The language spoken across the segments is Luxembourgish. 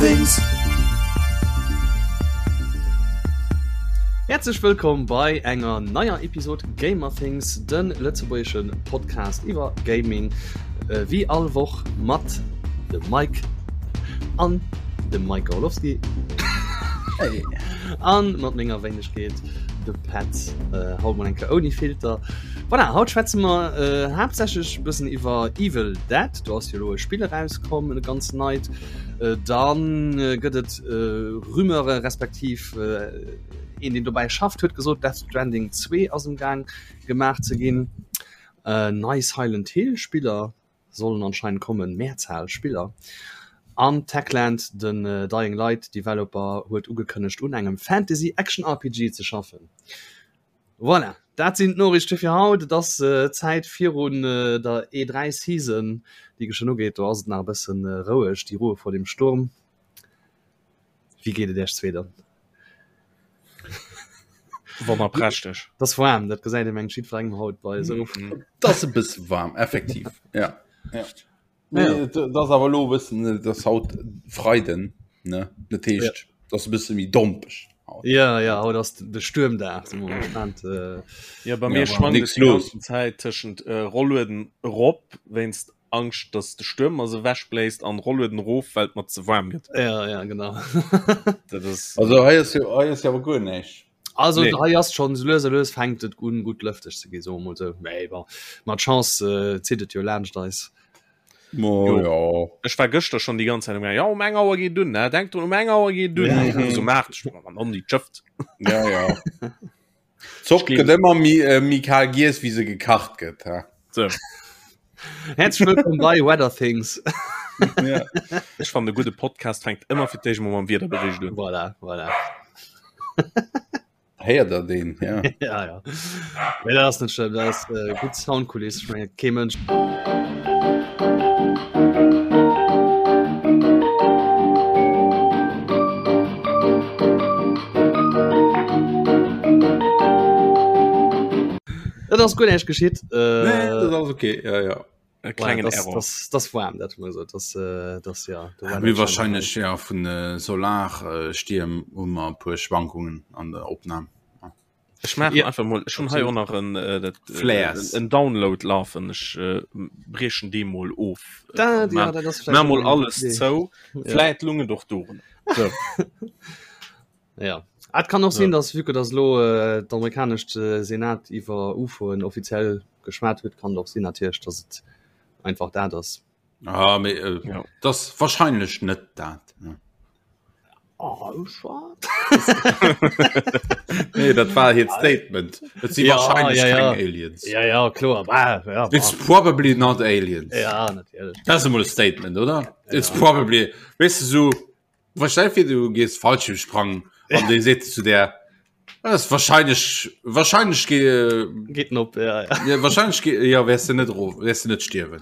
Gamerthings. Häerzlech wëllkomm bei enger neier Episod Gamerthings, de lëtzebuergesche Podcast iwwer Gaming. Wéi all Woch mat dem Mike an dem Mike Orlowski hey. an mat menger Wéinegkeet de Pat äh, haut mal enke ouni Filter. Voilà, haut schwätze mer äh, haaptsächlech bëssen iwwer Evil Dead. Do ass jo lo e Spill erauskomm, e ganz neit. Äh, dann äh, gëtt et äh, Rumeure respektiv äh, een, deen dobäi schafft, huet gesot, Death Stranding 2 ass am Gaang gemaach ze ginn. Äh, nei Silent Hill Spiller sollen anscheinend kommen, Mehrzahl Spiller. An Techland, den Dying Light Developer, huet ugekënnegt un engem Fantasy Action RPG ze schaffen. Voilà, dat sinn d'Noriichte fir haut. Et ass Zäit virun der E3 Season, déi geschwënn ugeet. Do ass et nach e bëssen roueg, die Ruhe vor dem Sturm. Wéi geet et Iech zwee dann? Wonnerprächteg. Dat ass waarm, dat gesäit ee mengt jiddwerengem haut bei esou. Dat ass e bësse waarm, effektiv, ja. Ja. Nee, dat ass awer elo e bëssen, dat ass haut Freiden, ne? Dat heescht, dat ass e bësse méi dompeg haut. Ja, ja, haut ass de Stuermdag, si mer gespaant. Ja, bei mir schwankt et déi ganzen Zäit tëschent Rollueden erop wéinst Angscht dass de Stuerm mer se ewech bléist an Rollueden erof well et mer ze waarm gëtt. Ja, ja, genau. Dat ass Also hei ass jo, hei ass jo awer guer näischt. Also nee. hei ass schon lues a lues fänkt et un gutt lëfteg ze gi soe mol sou. Mee bon, mat Chance äh, zitt et jo laanscht eis. Mo, Jo. ja. Ech war gëschter schon déi ganz Zäit um ja um eng Auer geet dunn ne denk drun um eng Auer geet dunn Ja. ja. so maacht ech an an déi Schëfft. Ja, ja. Zopp gëtt ëmmer méi äh, méi kal giess, wéi se gekacht gëtt. Ha? So. Herzlich willkommen bei Weather Things. Ja. Ech fand e gudde Podcast fänkt ëmmer fir d'éischt mol mam Wiederbericht un. Voilà, voilà. Héiert der deen? Ja. ja, ja. Nee, dat ass net schlëmm, dat ass äh, gutt Soundkuliss. Ich meine, kee Mënsch. Dat ass guer näischt geschitt. Äh, nee, dat ass okay. Ja, ja. E klengen das, Error. Das, das warm, dat man so. Das, äh, das, ja, ja, wie wahrscheinlich ja, vun äh, Solarstierm hu mer e puer Schwankungen an der Opnam. Ech maachen ja. einfach mol schon hei och nach en äh, dat, äh, Flares. en Download lafen ech äh, briechen dee mol of Da, äh, ja, dat ass ma mol alles Idee. zou Ja. Vläit lunge doch doren so. Ja. Ah, Et kann och sinn, dass vu que dass lo äh, d'amerikanescht äh, Senat iwwer UFOen offiziell geschwat huet, kann et och sinn natierlech, dass et einfach dat ass. Ah, mee, äh, Ja. das wahrscheinlech net dat. Ja. Oh, schade. Nee, dat war hiert Statement. Et si Ja, wahrscheinlech ja, ja. keng Aliens. Ja, ja, kloer. Bah, ja, bah. It's probably not aliens. Ja, natierlech. Dat ass emol e Statement, oder? It's probably, weess de, so, wa stell dir vir, du gees Fallschirmsprangen an dee seet zu der, das ist wahrscheinlich, wahrscheinlich ge Geht op, ja, ja. ja, wahrscheinlich ge ja, wärst du net erof, wärst du net stierwen.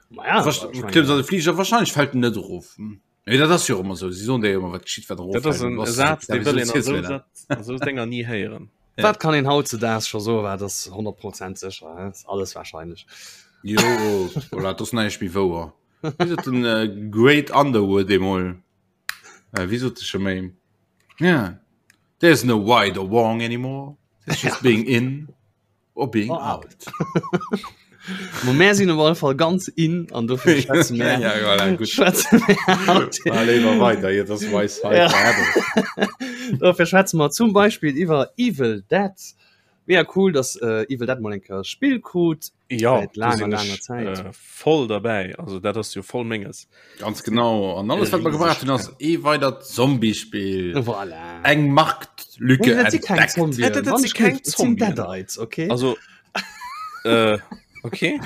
Ma ja, Was, ich mein, klimmst an de Flieger, wahrscheinlich fällt en net erof. Hm. Nee, dat ass jo ëmmer sou, si soen dir jo ëmmer, wat geschitt, wat erof Dat ass en Saz, dee wëll een an esou Sätz, an esou Dénger ni héieren. Ja. Wat kann een hautzedaags scho soen, wat ass 100% sécher, hä? Ass alles wahrscheinlech. Jo, voilà, dat ass näischt méi wouer. Wéi sot den äh, Great Underwood eemol? Äh, wéi sot de scho méi? Yeah, there's no right or wrong anymore. It's just being in or being Or out. Mo mär sinn op alle Fall ganz in an dofir schwätze mär Ja, voilà, gut. schwätze mär haut. Mal léiwer weiter, hier, das weiß halt Ja. forever. Dofir schwätze mer zum Beispiel iwwer Evil Dead. Mega cool, dass äh, Evil Dead mol eng Kéier e Spill krut. Ja, Säit do laanger, sinn laanger ech Zäit. äh, voll derbäi. Also dat ass jo voll menges. Ganz genau. An alles, wat mer gebraucht hunn, ass ee weidert Zombie-Spill. Voilà. Eng Marktlücke Nee, dat si keng entdeckt. Zombien. Ja, dat- dat Wann si ech keng géif, et sinn Zombien. Deadites, okay? Also äh, okay.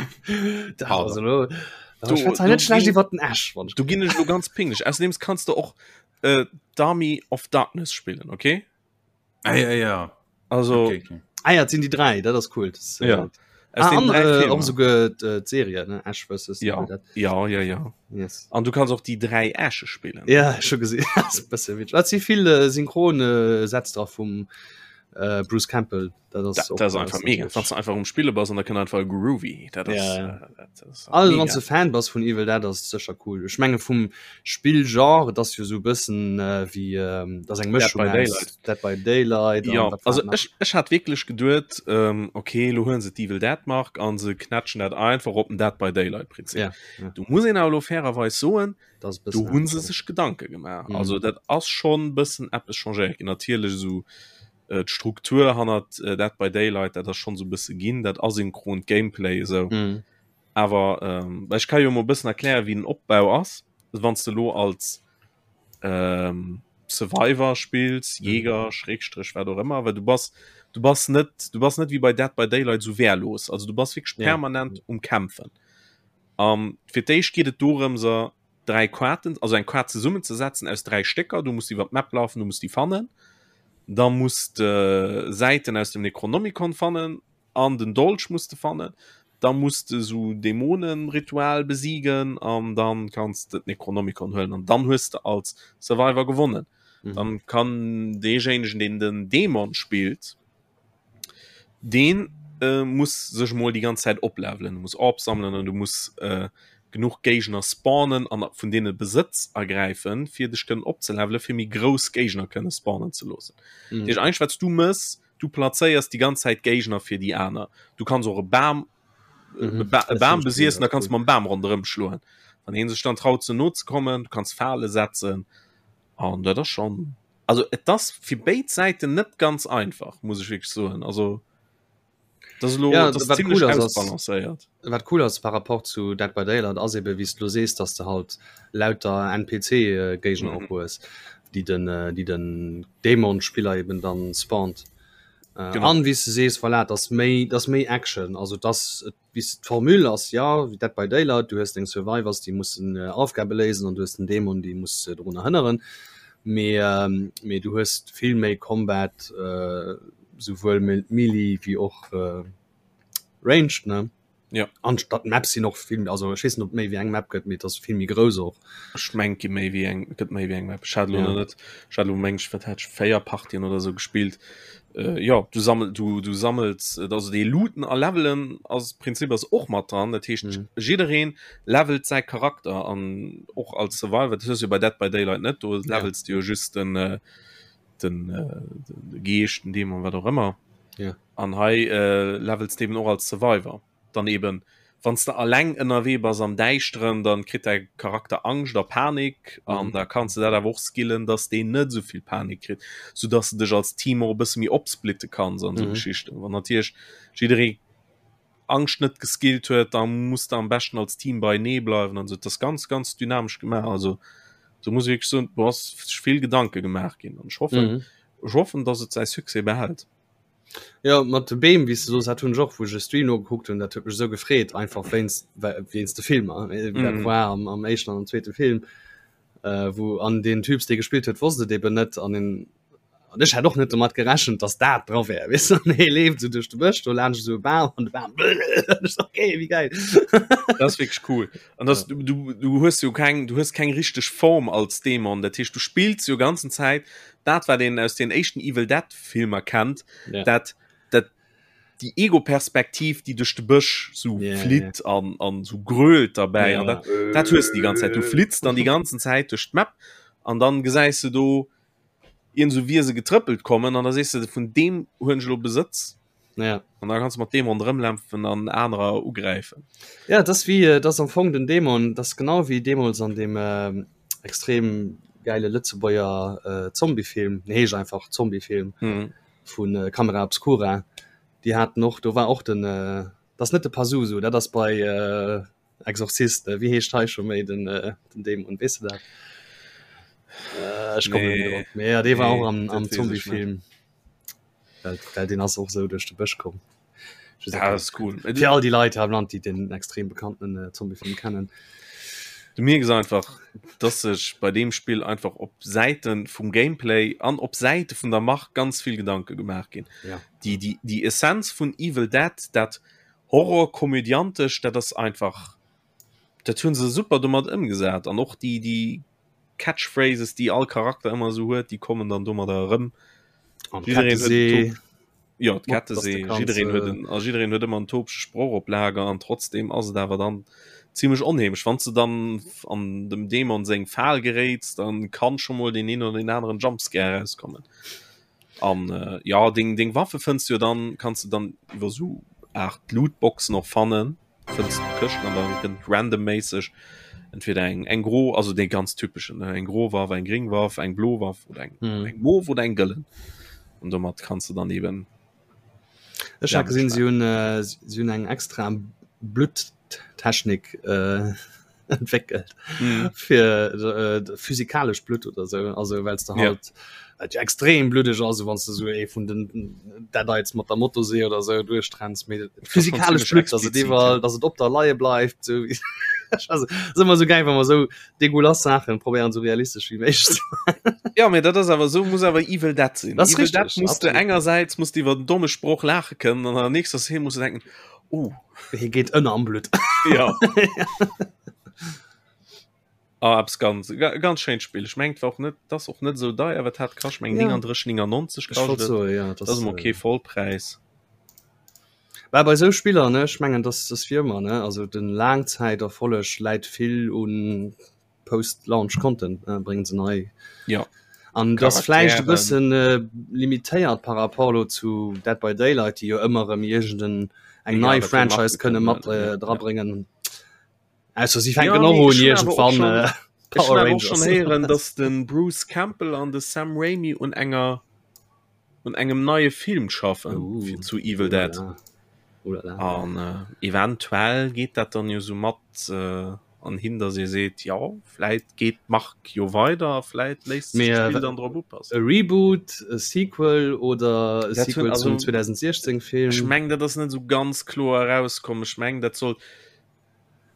Dat Pardon. ass elo. Du- Ich schwätze du net schlecht ginn- iwwer den Ash, wann ich Du ginn ech lo ganz pinglech. Außerdem kannst du och äh, d'Army of Darkness spillen, okay? Ah, ja, ja. Also Okay, okay. Ah ja, et sinn déi dräi, dat ass cool. Das, äh, Ja. Aus Ah, den an, drei äh, Filmer. och souguer äh, d'Serie, ne? Ash vs. Ja. Evil Dead. Ja, ja, ja. Yes. An du kannst och déi dräi Äsche spillen. Ja, scho gesinn. Dat ass e bësse witzeg. Et si vill äh, synchron äh, Sätz dra vum. Äh, Bruce Campbell dat ass, dat, dat ass einfach mega wann du einfach um Spille bass an da kënnt einfach e Groovy dat ass, ja, ja. Äh, dat ass also wann du Fan bass vun Evil Dead ass sécher cool ech menge vum Spillgenre dat ass jo sou bëssen äh, wéi ähm, dat ass eng Mëschung Dead by Daylight Dead by Daylight ja also ech, ech hat wierklech geduet ähm, okay lo huelen se d'Evil Dead Mark an se knätschen dat einfach op den Dead by Daylight Prinzip ja, ja. du muss een awer lo fairerweis soen do hunn se sech Gedanke gemaach. Mhm. Also dat ass schon bëssen eppes changéiert ginn. Natierlech esou äh, d'Struktur hannert äh, Dead by Daylight, dat ass schon so bësse ginn, dat asynchront Gameplay esou. Mhm. Awer ähm, ech kann jo mol bëssen erklären, wéi den Opbau ass, wann du lo als ähm, Survivor spills, mhm. Jäger, Schrägstrich, wat och ëmmer, well du bass du bass net du bass net wie bei Dead by Daylight so wehrlos. Also du bass wirklich ja. permanent um Kämpfen. An fir d'éischt geet et dorëmser 3 Kaarten, also eng Kaart zesummenzesetzen aus 3 Stécker. Du muss iwwer d'Map lafen, du muss déi fannen. Da muss de Säiten aus dem Necronomicon fannen an den Dolch muss de fannen. Da muss de sou Dämonenritual besiegen an dann kanns de d'Necronomicon huelen an dann hues de als Survivor gewonnen. Mhm. Dann kann deejéinegen, deen den Dämon spillt, Deen muss sech mol déi ganz Zäit oplevelen, du muss Orbs sammelen an du muss genuch Géigner spawnen an vun deene Besëtz ergräifen, fir dech kënnen opzelevelen, fir méi grouss Géigner kënne spawnen ze loossen. Mhm. Dat heescht eigentlech wat s du mëss, du plazéiers déi ganz Zäit Géigner fir déi aner. Du kanns och e Bam mhm. e Bam besiessen, da kanns du mam Bam ronderëm schloen. Wann heen sech dann traut ze no ze kommen, du kanns Fale setzen an dat ass schonn Also et ass fir béid Säiten net ganz einfach, muss ech wierklech soen. Also dat ass elo Ja, dat ass wat zimmlech cool ass, ass ausbalancéiert. wat cool ass par rapport zu Dead by Daylight ass ebe wéi s de lo sees, dass de halt lauter NPC-Géigner och Mhm. hues, déi den déi den Dämon-Spiller eben dann spawnt. Äh, Genau. an wéi s de sees, voilà, et ass méi, et ass méi Action, also et ass et Bis d'Formule ass jo wéi Dead by Daylight, du hues deng Survivors, déi mussen Aufgabe léisen an du hues den Dämon, dee muss dorunner hënneren. Mee mee du hues vill méi Combat, souwuel Melee wéi och Ranged, ne? Jo. An d'Maps sinn och vill, also ech weess net, ob et méi wéi eng Map gëtt, mee et ass vill méi grouss och. Ech mengen, et gi méi wéi eng, et gëtt méi wéi eng Map. Ech hat elo Ja. nach net, ech hat elo meng ech, wat hat ech, 4 Partien oder sou gespillt. Äh, jo, du sammel, du, du sammels, äh, also dee Looten a Levelen ass, Prinzip ass och mat dran. Dat heescht, Mhm. jiddereen levelt säi Charakter an och als Survivor, dat hues du jo bei Dead by Daylight net, do Ja. levels du jo just den, äh, den, äh, de Geescht, den Dämon, wat och ëmmer. Ja. An hei äh, levels du eben och als Survivor. Dann eben, wann s de alleng ënnerwee bass am Däischteren, dann kritt däi Charakter Angscht a Panik an Mhm. da kanns de dat awer och skillen, dass deen net esou vill Panik kritt, soudass de dech als Team och e bësse méi opsplitte kanns an esou Mhm. Geschichten. Wann natierlech jidderee Angscht net geskillt huet, da muss de am beschten als Team beienee bleiwen an esou. Dat ass ganz, ganz dynamesch gemaach. Also do muss ech wierklech soen, do ass sech vill Gedanke gemaach ginn an ech hoffen, Mhm. ech hoffen, dass et säi Succès behält. Jo, mat de Beem, wéi s de soos, dat hunn ech och, wou ech e Stream nogekuckt hunn, dat huet mech esou gefreet, einfach wéinst, wéinst de Filmer, wéi dat Mhm. war am, am éischten an am zweete Film, äh, wou an deen Typs, dee gespillt huet, wosst et eben net an en, an ech hat och net domat gerechent, dass dat dra wär, weess de, an hee leeft esou duerch de Bësch, do laanscht esou e Bam an de Bam, an ech so, okay, wéi gäil. Dat ass wierklech cool. An das, Ja. du, du, du hues jo keng, du hues keng richteg Form als Dämon. Dat heescht, du spills jo ganzen Zäit dat, wat een aus den éischten Evil Dead Filmer kennt, Ja. dat, dat déi Ego-Perspektiv, déi duerch de Bësch sou Ja, ja. flitt an, an sou grölt derbäi. Ja. An dat, dat hues du déi ganz Zäit. Du flitts dann déi ganzen Zäit duerch d'Map an dann gesäis du do iergend sou Wiese getrëppelt kommen an da sees du, vun deem huelen ech elo Besëtz. Ja. An da kanns du mat deem ronderëmlämpfen an anerer ugräifen. Ja, das wie äh, das am Fong den Dämon, das genau wie deemools an dem äh, extrem geile Lëtzebuerger äh, Zombiefilm, nee, heescht einfach Zombiefilm mhm. vun äh, Camera Obscura. Déi haten och, do war och den äh, das net de Pazuzu, dat ass bei äh, Exorzist, äh, wie heescht hei scho méi den, äh, den Dämon, weess du dat? Äh, ech komme nee. drop. Mee ja, dee war Nee, och am, dat am weess ech net. Zombiefilm. Well, well den ass och sou duerch de Bësch komm. Ja, das ist cool. Fir all déi Leit am Land, déi den extrem bekannten äh, Zombiefilm kennen. Du mierks einfach, dass sech bei deem Spill einfach op Säite vum Gameplay an op Säite vun der Mark ganz vill Gedanke gemaach ginn. Ja. Déi, déi, déi Essenz vun Evil Dead, dat Horror-komödiantesch, dat ass einfach, dat hunn se super domat ëmgesat an och déi, déi Catchphrases, déi all Charakter ëmmer esou huet, déi kommen dann domadder erëm. Jiddereen huet ja d'Kettesee jiddereen huet en a jiddereen huet ëmmer en topege Sproch op Lager an trotzdem ass et awer dann zimmlech onheemlech. Wann s de dann an dem Dämon seng Fal geréits, dann kann scho mol deen een oder deen aneren Jumpscare erauskommen. An äh, ja deng deng Waffe fënns du jo dann kanns du dann iwwer sou Art Lootboxen och fannen. Fënns du Këschten an dann kënnt randomméisseg entweder eng eng gro also dee ganz typeschen ne eng gro Waff, eng gring Waff, eng blo Waff oder eng mm. eng mof oder eng gëllen. An domat kanns du dann eben Ech hat gesinn si hunn äh, si hunn eng extra Blutttechnik äh, entwéckelt mm. fir äh, physikalesch Blutt oder so also well du halt ja. Äh, extrem bluddeg also wann du so ee vun den Deadites mat der Motosee oder so duerchtrennst méi physikalesch Blutt also die war ja. dass et op der Leie bleift so also, ist immer so geil wenn man so degulas Sachen probieren so realistisch wie méiglech Ja mee dat ass awer sou muss awer Evil Dead sinn. Das Evil richtig, Dead muss du engersäits muss du iwwer den domme Sproch laache kënnen an an der nächster Szene muss du denken oh hie geet ënner am Blutt. Ja. Ah, eppes ganz ganz schéint Spill. Ech mengt war och net das och net sou deier, wat hat kascht meng Ja. 39 99 Ech wollt kascht et. soen, ja, Das ass emol kee Vollpräis. Bah, bei sou Spiller ne ech mengen dass das wie ëmmer ne also den Laangzäiterfolleg läit vill un Post Launch Content ne bréngen se nei Ja. an das vläicht e Charakteren. bëssen äh, limitéiert par rapport lo zu Dead by Daylight déi jo ëmmer erëm iergend eng Egal, nei wat fir Franchise Marke kënne kënnen, mat ja, äh, ja. drabréngen. Ausser si Ja, fänken och mee un ech hunn awer och iergendwann schon äh, ech hunn Power awer och schon Rangers. héieren, dass de Bruce Campbell an de Sam Raimi un enger un engem neie Film schaffen Uh, fir zu Evil Dead. Ulala. Ulala. An äh, eventuell geet dat dann jo sou mat äh, an hin, dass ee seet, ja vläit geet d'Mark jo weider, vläit léisst sech Mee, äh, d'Spill dann drop upassen. E Reboot, e Sequel oder e Dat hunn Sequel also zum 2016 ech Film? meng dat ass net sou ganz kloer erauskomm. Ech meng dat soll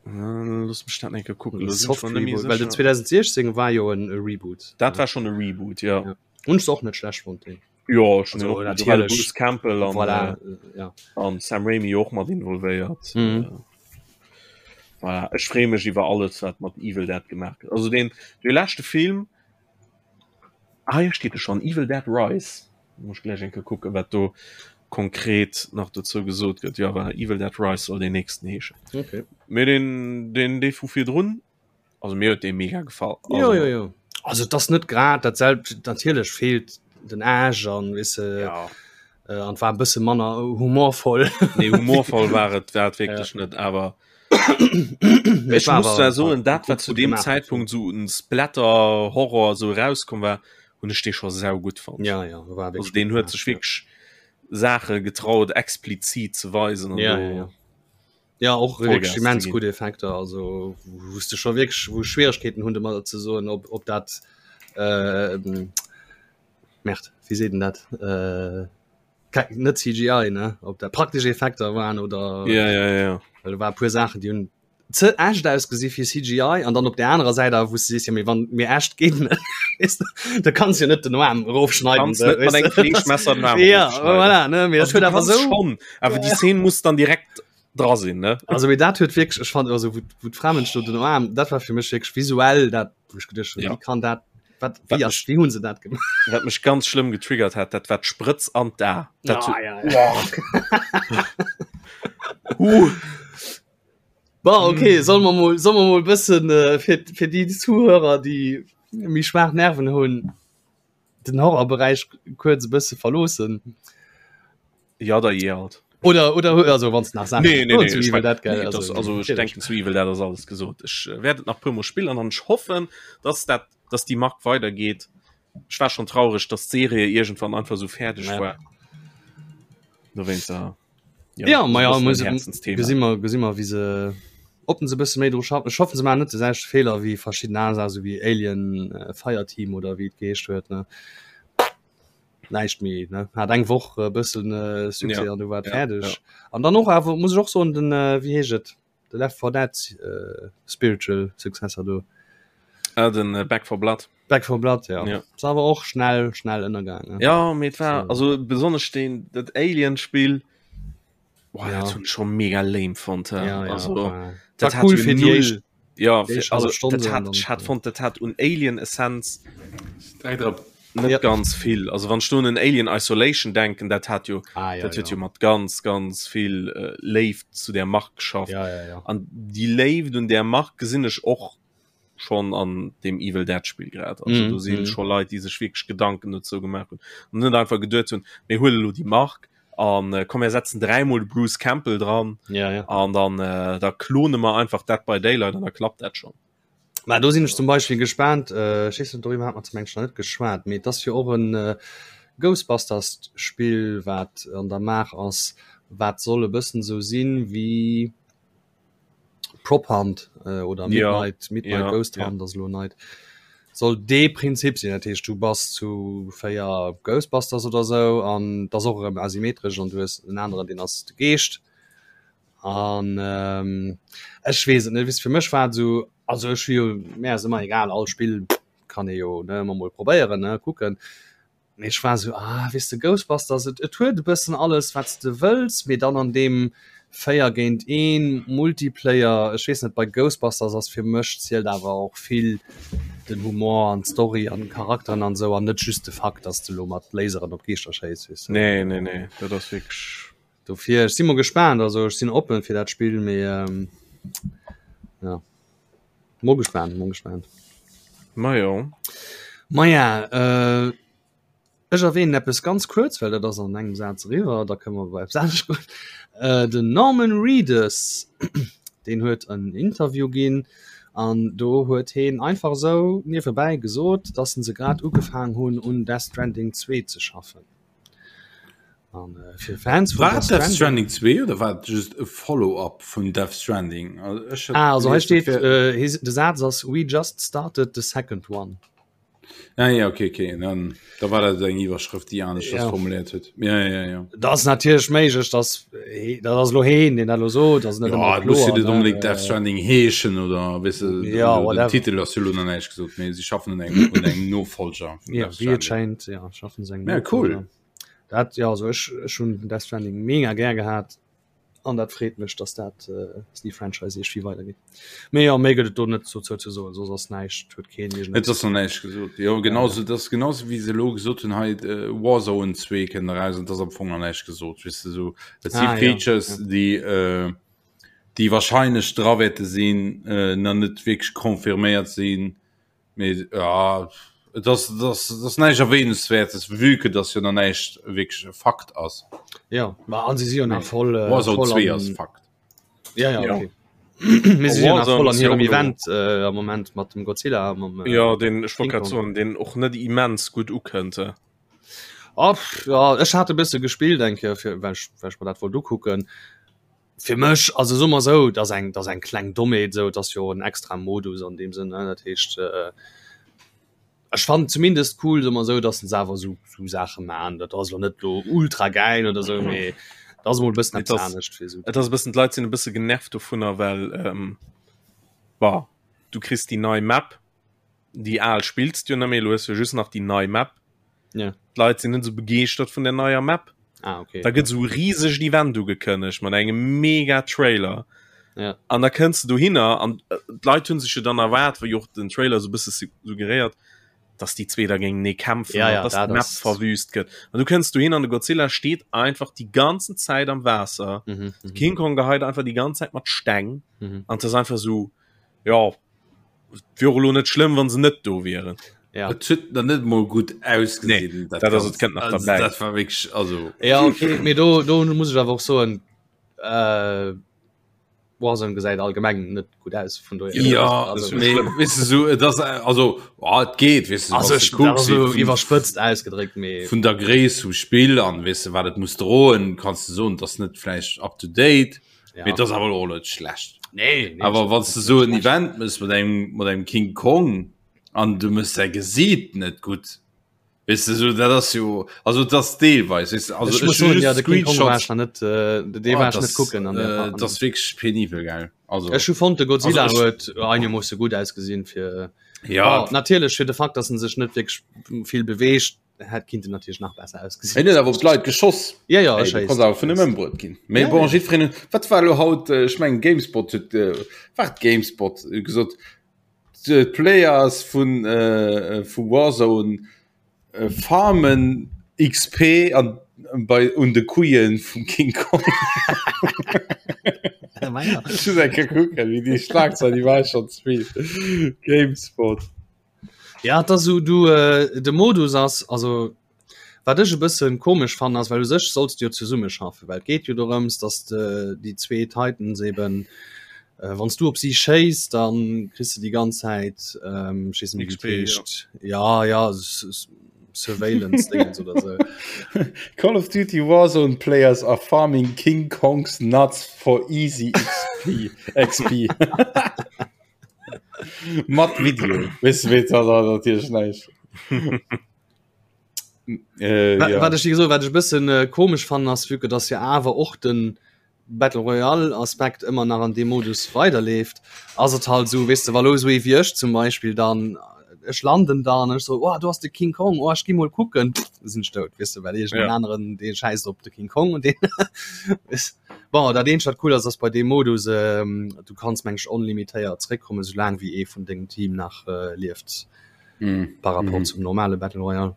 äh, looss mech dat eng Kéier kucken, Oder do sinn ech Soft mer net méi Reboot, well den sécher. 2016 war jo en e Reboot. Dat war schonn e Reboot, ja. Ja. Hunn ech och net schlecht fonnt deen. Jo, ech hunn Also, och gut, natierlech. Bruce Campbell an, Voilà, äh, ja. an Sam Raimi och mat involvéiert. Mhm. Äh, voilà. Ech freeë mech iwwer alles, wat mat Evil Dead gemaach gëtt. Also den, de leschte Film, ah, hier steet e schon, Evil Dead Rise. Muss ech gläich eng Kéier kucken, wat do konkret nach dozou gesot gëtt. Jo, voilà, Evil Dead Rise soll deen nächsten heeschen. Okay. Mee den, den, dee vu virdrun, Also mir huet dee mega gefall. Also, jo, jo, jo. Also das net grad dat selbst natierlech feelt den Age an wisse ja. äh, an war bësse manner humorvoll. Nee humorvoll war et war et wierklech ja. net awer Ech muss da soen dat wat zu dem Zeitpunkt so en Splatter Horror so rauskomm war hunn ech dee scho sau gutt fonnt. Ja, ja, war also den huet sech wierklech Saache getraut explizit ze weisen an ja, ja, ja. Ja och wierklech immens gutt Effekter, also wou s de scho wierklech wou Schwieregkeeten hunn de mat ze soen, ob ob dat äh, Merd, wéi seet en dat äh, net CGI ne, ob dat praktesch Effekter waren oder ja, ja, ja. Well do war e puer Saachen, déi hunn ze echt ausgesi fir CGI an dann op der anerer Säit awer wou s de sees, ja mee wann mir echt geet net weess de, da kanns jo net den Aarm erofschneiden Kanns net mat engem Fleeschmesser den Aarm Ja erofschneiden. voilà ne, mee dat Also, huet du awer kanns esou schon, awer déi Szene muss dann direkt dra sinn ne. Also mee dat huet wierklech, ech fand also wou wou d'Fra-Mënsch do den Aarm, dat war fir mech wierklech visuell dat wou ech geduecht hunn, Ja. wéi kann dat wat Wat wéi ass mech wéi hunn se dat gemaach? wat mech ganz schlëmm getriggert hat, dat war d'Sprëtz an d'A. Dat Ah, huet ja, ja. Huh. Bon, okay, soll mer mol soll mer mol bëssen äh, fir fir déi Zuhörer, déi méi schwaach Nerven hunn, den Horrorberäich kuerz e bësse verloossen. Ja da je alt. Oder oder also wann nach Sachen Nee, nee, nee, zu ich Evil mein, Dead, gell, nee, das, also ich natierlech. denken zu Evil Dead ass alles gesot. Ech äh, werd et nach puer mol spillen an ech hoffen, dass dat dass die Mark weitergeht. Ech war schon traurig, dass d'Serie irgendwann einfach so fäerdeg Ja. war. Dowéinst ja. Ja, ja ma ja, muss Herzensthema. Gesi mer gesi mer wéi se ob se bësse méi dru schaffen. Ech hoffen se maachen net de selwechte Feeler wéi verschidden aner Saachen, sou wéi Alien äh, Fireteam oder wéi et geheescht huet ne. Näischt méi ne hat eng Woch e bëssen äh, Succès Ja, an du war et ja, fäerdeg. ja. An dann och awer muss ech och soen den äh, wéi heescht et de Left 4 Dead äh, Spiritual Successor do. Ah, den äh, Back 4 Blood. Back 4 Blood ja. Ja. Ass awer och schnell schnell ënnergaangen. Ja, mee et war So. also besonnesch den dat Alien Spiel boah, Ja. dat hunn ech schon mega lame fonnt. Ja, ja, also war, dat war hat cool jo fir déi null éischt ja déi fir, éischt also hallef Stonn dat so an hat dann ech hat fonnt dat hat un Alien Essenz Direkt erop. Net ja. ganz vill. Also wann ech do un en Alien Isolation denken, dat hat jo ah, ja, dat huet ja. jo mat ganz ganz vill äh, Léift zu der Mark geschafft. Ja, ja, ja. An déi Léift un der Mark gesinn ech och schon an dem Evil Dead Spiel grad. Also mm, do sinn mm. schon Leit, déi sech wierklech Gedanken dozou gemaach hunn an net einfach geduet hunn, mir huele lo déi Mark an äh, komm mir setzen dräimol de Bruce Campbell dran ja, ja. an dann äh, da klone mer einfach Dead by Daylight an da klappt dat schon. Mä do sinn ech zum Beispill gespaant, äh, ech weess net, doriwwer hat mer zum Englischen net geschwat, mee et ass jo och en äh, Ghostbusters-Spill, wat an der Maach ass, wat soll e bëssen esou sinn wéi Prop Hunt äh, oder Midnight, ja, Midnight ja, Ghost Hunt ja. ass elo neit. Soll dee Prinzip sinn, dat heescht du bass zu 4 Ghostbusters oder sou an dat ass och erëm asymmetresch an du hues en aneren, deen ass de Geescht. An ähm, ech weess et net, weess fir mech war et esou, also ech hu jo, mir ass ëmmer egal, all Spill kann ee jo ne ëmmer mol probéieren ne kucken. Mee ech war esou, ah weess de Ghostbusters, et, et huet e bëssen alles wat s de wëlls, mee dann an deem 4 géint 1 Multiplayer, ech weess net, bei Ghostbusters ass fir mech zielt awer och vill den Humor an d'Story an d'Charakteren an esou an net just de Fakt, dass de lo mat Laseren op Geeschter schéiss, weess de. Nee, nee, nee, dat ass wierklech. Dofir, ech si mol gespaant, also ech sinn oppen fir dat Spill, mee ähm, ja. Mol gespaant, mol gespaant. Ma jo. Ma ja, äh, ech erwähnen eppes ganz kuerz, well dat ass an engem Saz eriwwer, da kënne mer bei eppes anescht goen. Äh, den Norman Reedus, deen huet en Interview ginn an do huet heen einfach esou niewebäi gesot, dass se grad ugefaang hunn un Death Stranding 2 ze schaffen. An äh, fir Fans vun War Death Death Stranding 2 oder war et just e Follow-up vun Death Stranding? Also, ech Ah, also hei steet äh, de Saz ass we just started the second one. Ah, ja, okay, okay. Dann, da war dat eng Iwwerschrëft, déi anescht ja. formuléiert huet. Ja, ja, ja. Dat ass natierlech méiglech, dass dat ass lo heen, deen dat lo sot, ass net ja, muss net unbedingt Death Stranding heeschen oder weißt du, ja, den Titel ass jo lo nach näischt gesot, mee si schaffen un engem, un engem Nofolger. Ja, wéi et schéint, ja, schaffen se engem Ja, cool. Dat ja also ech ech hunn Death Stranding mega gär gehat an dat freet mech, dass dat äh, dass déi Franchise iergendwéi weidergeet. Mee ja, méi gëtt et do net dozou ze soen, soss ass näischt, huet keen iergend Et ass nach näischt gesot. Jo, genauso, dat ass genauso wéi se elo gesot hunn, hei äh, Warzone 2 kënnt eraus an et ass am Fong nach näischt gesot, weess de, sou. Et si Ah, ja, Features, ja. déi äh, déi wahrscheinlech dra wäerte sinn, äh, nach net wierklech confirméiert sinn. Mee ja, et ass, et ass, et ass näischt Erwähnenswertes, vue que dass jo nach näischt wierklech e Fakt ass. Ja, ma an si si jo nach voll äh, Warzone voll 2 an ass Fakt. Ja, ja, Ja. okay. Mee si si jo nach Warzone voll an ass jo hirem och elo Event äh, am Moment mat dem Godzilla a mam äh, Ja, den ech wollt King grad Kong. soen, deen och net immens gutt ukënnt. eh. Oh, pff, ja, ech hat e bësse gespillt eng Kéier, fir, well ech, well ech mer dat wollt ukucken. Fir mech, also soe mer esou, et ass eng, et ass eng kleng Dommheet esou, et ass jo en extra Modus an deem Sënn, ne, dat heescht, ech fannen zumindest cool, soe mer esou, datt se awer esou, esou Saache maachen. Dat ass elo net elo ultra gäil oder esou, mee et ass emol e bëssen Et eppes ass, anescht fir esou. et ass e bëssen, d'Leit sinn e bësse genervt dovunner, well, bah, du kriss déi nei Map, déi al spills du jo net méi, elo hues du jo just nach déi nei Map. Ja. D'Leit sinn net esou begeeschtert vun der neier Map. Ah, okay. Da gëtt esou e risegt Event ugekënnegt mat engem mega Trailer. Ja. An da kënns du dohinner an äh, d'Leit hunn sech jo dann erwaart, wéi och den Trailer esou e bësse suggeréiert, dass déi zwee da géintenee kämpfen ja, ja, an dass dat d'Map ass verwüst gëtt. An du kënns dohin an de Godzilla steet einfach déi ganzen Zäit am Waasser. mhm, mhm. King Kong geheit einfach déi ganz Zäit mat Steng. Mhm. An das einfach so ja wier och elo net schlëmm wann se net do wieren. Ja. Et huet nach net mol gutt ausgesinn. Nee, dat ass et kënnt nach also, derbäi. dat war wierklech also Ja okay, mee do do muss ech awer och soen äh, Warzone gesäit allgemeng net gutt aus vun dohier. Ja, also, mee weess de sou et ass also oh, et geet weess de, also wanns ech de dat kucks ass sou vun iwwerspëtzt ausgedréckt mee vun der Gréisst vum Spill an weess de wat et muss droen, kanns de soen, et ass net vläicht up to date. Ja. Mee et ass awer och net schlecht. Nee, nee, Awer wann du so en Event mëss mat engem mat engem King Kong an du mëss säi Gesiit net gutt, weess de, so dat ass jo also dat ass deelweis weess de, also ech muss ech hu soen, ja, just de King Kong war Screenshots ech nach net äh, dee oh, war ech dat net ass kucken an der äh, an dat ass wierklech penibel gell also Ech hu fonnt de also Godzilla ech huet einermoosse gutt ausgesinn fir ja oh, natierlech fir de Fakt, dass en sech net wierklech vill beweegt. Hätt kinnten natierlech nach besser ausgesinn. Hien huet awer op d'Leit geschoss. Ja, ja, Ey, du kanns awer vun em ëmbruet ginn. Mee Ja, bon, ja. jiddwereen huet, wat war elo haut, äh, ech mengen Gamespot huet, äh, war et Gamespot, huet gesot, d'Players vun, äh, vu Warzone. Farmen XP an bei un de Couillen vum King Kong. Ech muss eng Kéier kucken, wéi déi Schlagzeil, déi war schon ze vill. Gamespot. Ja, et ass esou, du, äh, de Modus ass, also wat ech e bëssen komesch fannen ass, well u sech solls de jo zesummeschaffen, well et geet jo dorëms, dass de déi zwee Titans eben, äh, wann s du op si schéiss, dann kriss de déi ganz Zäit, ähm, ech weess net méi wéi et XP, ja. heescht, ja, ja, Surveillance Dingens oder sou. Call of Duty Warzone players are farming King Kong's nuts for easy XP. XP. Mat Video. Weess du, wéi dat ass natierlech näischt. Äh, ja. Wat ech gesot, wat ech bëssen äh, komesch fannen ass, vu que dass jo awer och den Battle Royale Aspekt ëmmer nach an deem Modus weiderleeft, ass et halt esou, weess de, wa lo esou ee wéi ech zum Beispill dann, ech landen da an ech so, oh do ass de King Kong, oh ech gi mol kucken, pff, sinn ech dout, weess de, well iergend en Ja. aneren dee schäisst op de King Kong und deen bon, dat eenzegt wat cool ass, ass bei deem Modus, ähm, du kanns meng ech onlimitéiert zréckkommen, soulaang wéi ee vun dengem Team nach äh, lieft, Mm. par rapport Mhm. zum normale Battle Royale.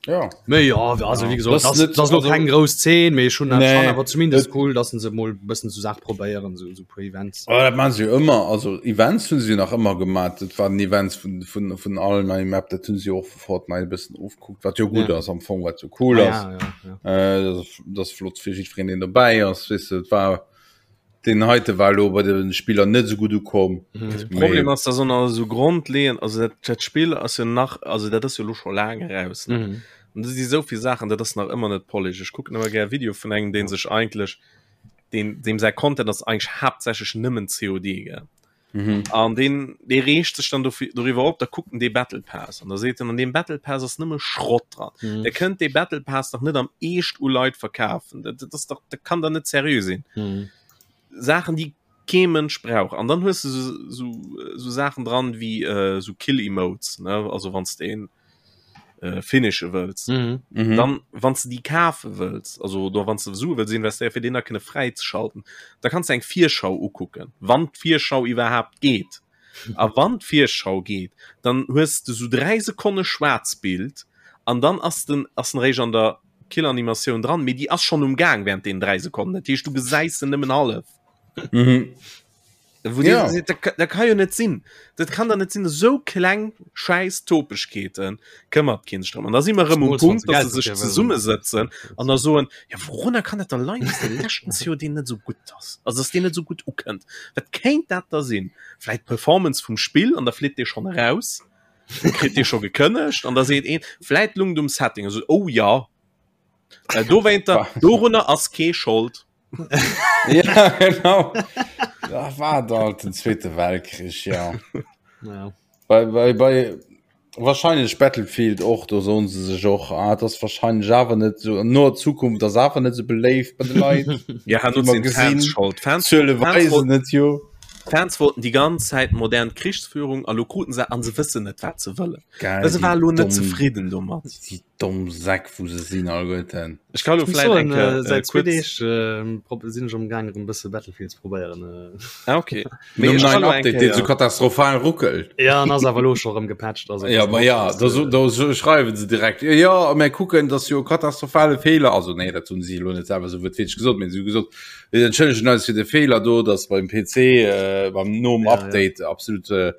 Ja. Méi ja, also wie gesagt, Das das, net, das lo also, keng grouss Zeen, mee schon nee, schon awer zumindest cool, dass se mol bëssen zu Saach probéieren so, so puer Events. Oh, dat man se jo ëmmer also Events hunn se nach ëmmer gemaat dat waren Events vun vun vun allen neien Map dat hunn se och vu Fortnite e bëssen ofgekuckt wat jo gutt Ja. ass am Fong wat jo cool Ah, ass ja, ja, ja. äh, dat ass- dat ass flott fir jiddwereen deen dobäi ass weess de et war Den heite war lo bei den Spiller net sou gutt ukomm. Mhm. Problem ass dass ënner sou grondleeën also dat dat Spill ass jo nach also dat ass jo lo scho laang eraus ne Mhm. an do si souvill Saachen dat ass nach ëmmer net polished. Ech kucken ëmmer gär Video vun engem deen sech eigentlech deen deem säi Content ass eigentlech haaptsächlech nëmmen COD gell Mhm. an deen dee reegt sech dann dofir doriwwer op, da kuckt en dee Battle Pass an da seet en an deem Battle Pass ass nëmme Schrott dran. Mhm. Der kënnt dee Battle Pass dach net am Eescht u Leit verkafen. Dat dat ass dach dat kann da net seriö sinn. Mhm. Saachen déi kee Mënsch brauch an dann hues du so, so, so Saachen dran wéi äh, so Kill Emotes ne also wann s de een äh, finishe wëlls Mhm. Mhm. dann wann du die kafe wëlls also do wann du Sue wëlls investéieren fir den da kënne fräi ze schalten da kannst du eng Virschau ukucken wann d'Virschau iwwerhaapt geet a wann d'Virschau geet dann hues du so 3 Sekonne Schwaarzbild an dann ass den ass den réischt an der Killanimatioun dran mee déi ass schonn um Gaang während den 3 Sekonnen dat heescht du gesäis se nëmmen hallef Mhm. Wo Ja. ja. Dat, dat kann jo net sinn. Dat kann da net sinn esou kleng scheiß Topegkeeten këmmert keen sech drëm. An da si mer erëm um Zumols, wann Punkt, se dass Geld se sech dofir wëllen. zesummesëtzen an da soen, ja wourunner kann dat da leien, dass de leschten COD net esou gutt ass, also dass deen net esou gutt ukënnt. Wat kéint dat da sinn? Vläit d'Performance vum Spill an da flitt dee schonn eraus, kritt dee scho gekënnegt an da seet een, vläit lung et um Setting, also oh ja, well dowéinter, dorunner ass kee Schold. ja, genau. Da war da halt den Zweite Weltkrich, ja. Ja. Bei, bei, bei wahrscheinlich Battlefield och, do soen se sech och, ah, das wahrscheinlich awer net so no Zukunft, das awer net so beléift bei de Leit. Ja, Wie han mer sinn gesinn, Fans schold. Fans, Zuele Fans weisen wollten, et jo. Fans wollten die ganz Zäit modern Krichsführung a lo kruten se an se wëssen net wat se wëllen. Geil, Se die war lo net dumm, zefridden domat. die domm Säck, wou se sinn alleguerten. Ech kann lo Ech muss vläit soen, eng Kéier äh, äh, säit zwee kuerz Deeg äh, prob- sinn ech am Gaang erëm bësse Battlefield ze probéieren. Äh. ah, okay. Mee Nom ech kann neien lo eng Update, deen so Kéier katastrophal ruckelt. Ja, an ass awer lo scho rëm gepatcht. Also, Ja, pass ma op, ja, dass, da, so, äh, da so schreiwen se direkt. Ja, ja, mir kucken, dass jo katastrophale Fehler, also nee, dat hunn si lo net selwer so wuertwiertlech gesot, mee si hu gesot, mir entschëllegen eis fir de Fehler do, dass beim PC äh, beim nom Ja, ja. Update absolut äh,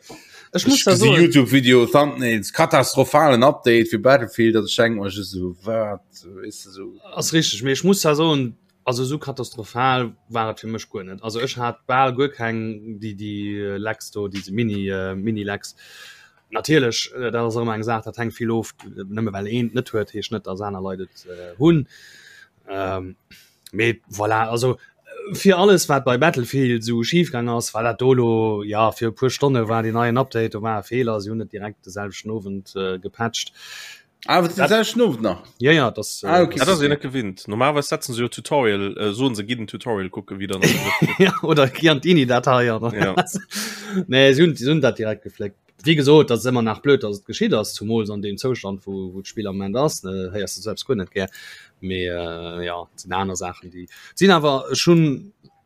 Ech muss Ech da gesi soen, YouTube-Video, Thumbnails, katastrophalen Update fir Battlefield, dat ech denken mer just esou, wat, weess de, esou. Ass richteg, mee ech muss da soen, also esou katastrophal war et fir mech guer net. Also ech hat bal guer keng déi déi Lags do, déi Mini Mini-Lags. Natierlech, dat ass och ëmmer eng Saach, dat hänkt vill of, nëmme well een et net huet, heescht net, datt aner Leit et hunn. Mee voilà, also fir alles wat bei Battlefield sou schif gaang ass, war dat do lo ja fir e puer Stonne war deen neien Update, do war e Feeler, si hunn et direkt de selwechten Owend äh, gepatcht. Ah, den selwechten Owend nach? Ja ja, das, ah, okay. das ass jo net gewinnt. Normalerweis setzen se jo Tutorial, äh, soen se gi den Tutorial kucke wéi dann. ja, oder gi an d'INI-Datei. Ja. nee, si hunn, si hunn dat direkt gefléckt. Wéi gesot, dat ass ëmmer nach blöd, datt et geschitt ass, zumools an deem Zoustand, wou, wou d'Spill am Moment ass, ne, héiers de selbst guer net gär. Mee äh, ja, et sinn aner Saachen, déi sinn awer ech hunn,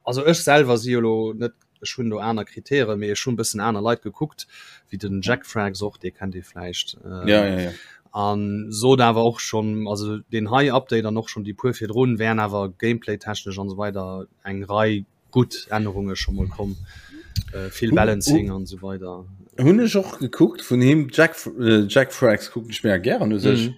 also ech selwer si jo lo net, ech hunn do aner Kritären, mee ech hunn bëssen aner Leit gekuckt, wéi den Jack Frags och, dee kennt ee vläicht. Äh, ja, ja, ja. An sot awer och schonn, also deen hei Update an och schonn déi puer virdrun wären awer Gameplay-technesch an esou weider eng Rei gutt Ännerunge scho mol komm, vill Balancing an esou weider. Hunn ech och gekuckt vun him, Jack, Jack Frags kucken ech mega gären u sech.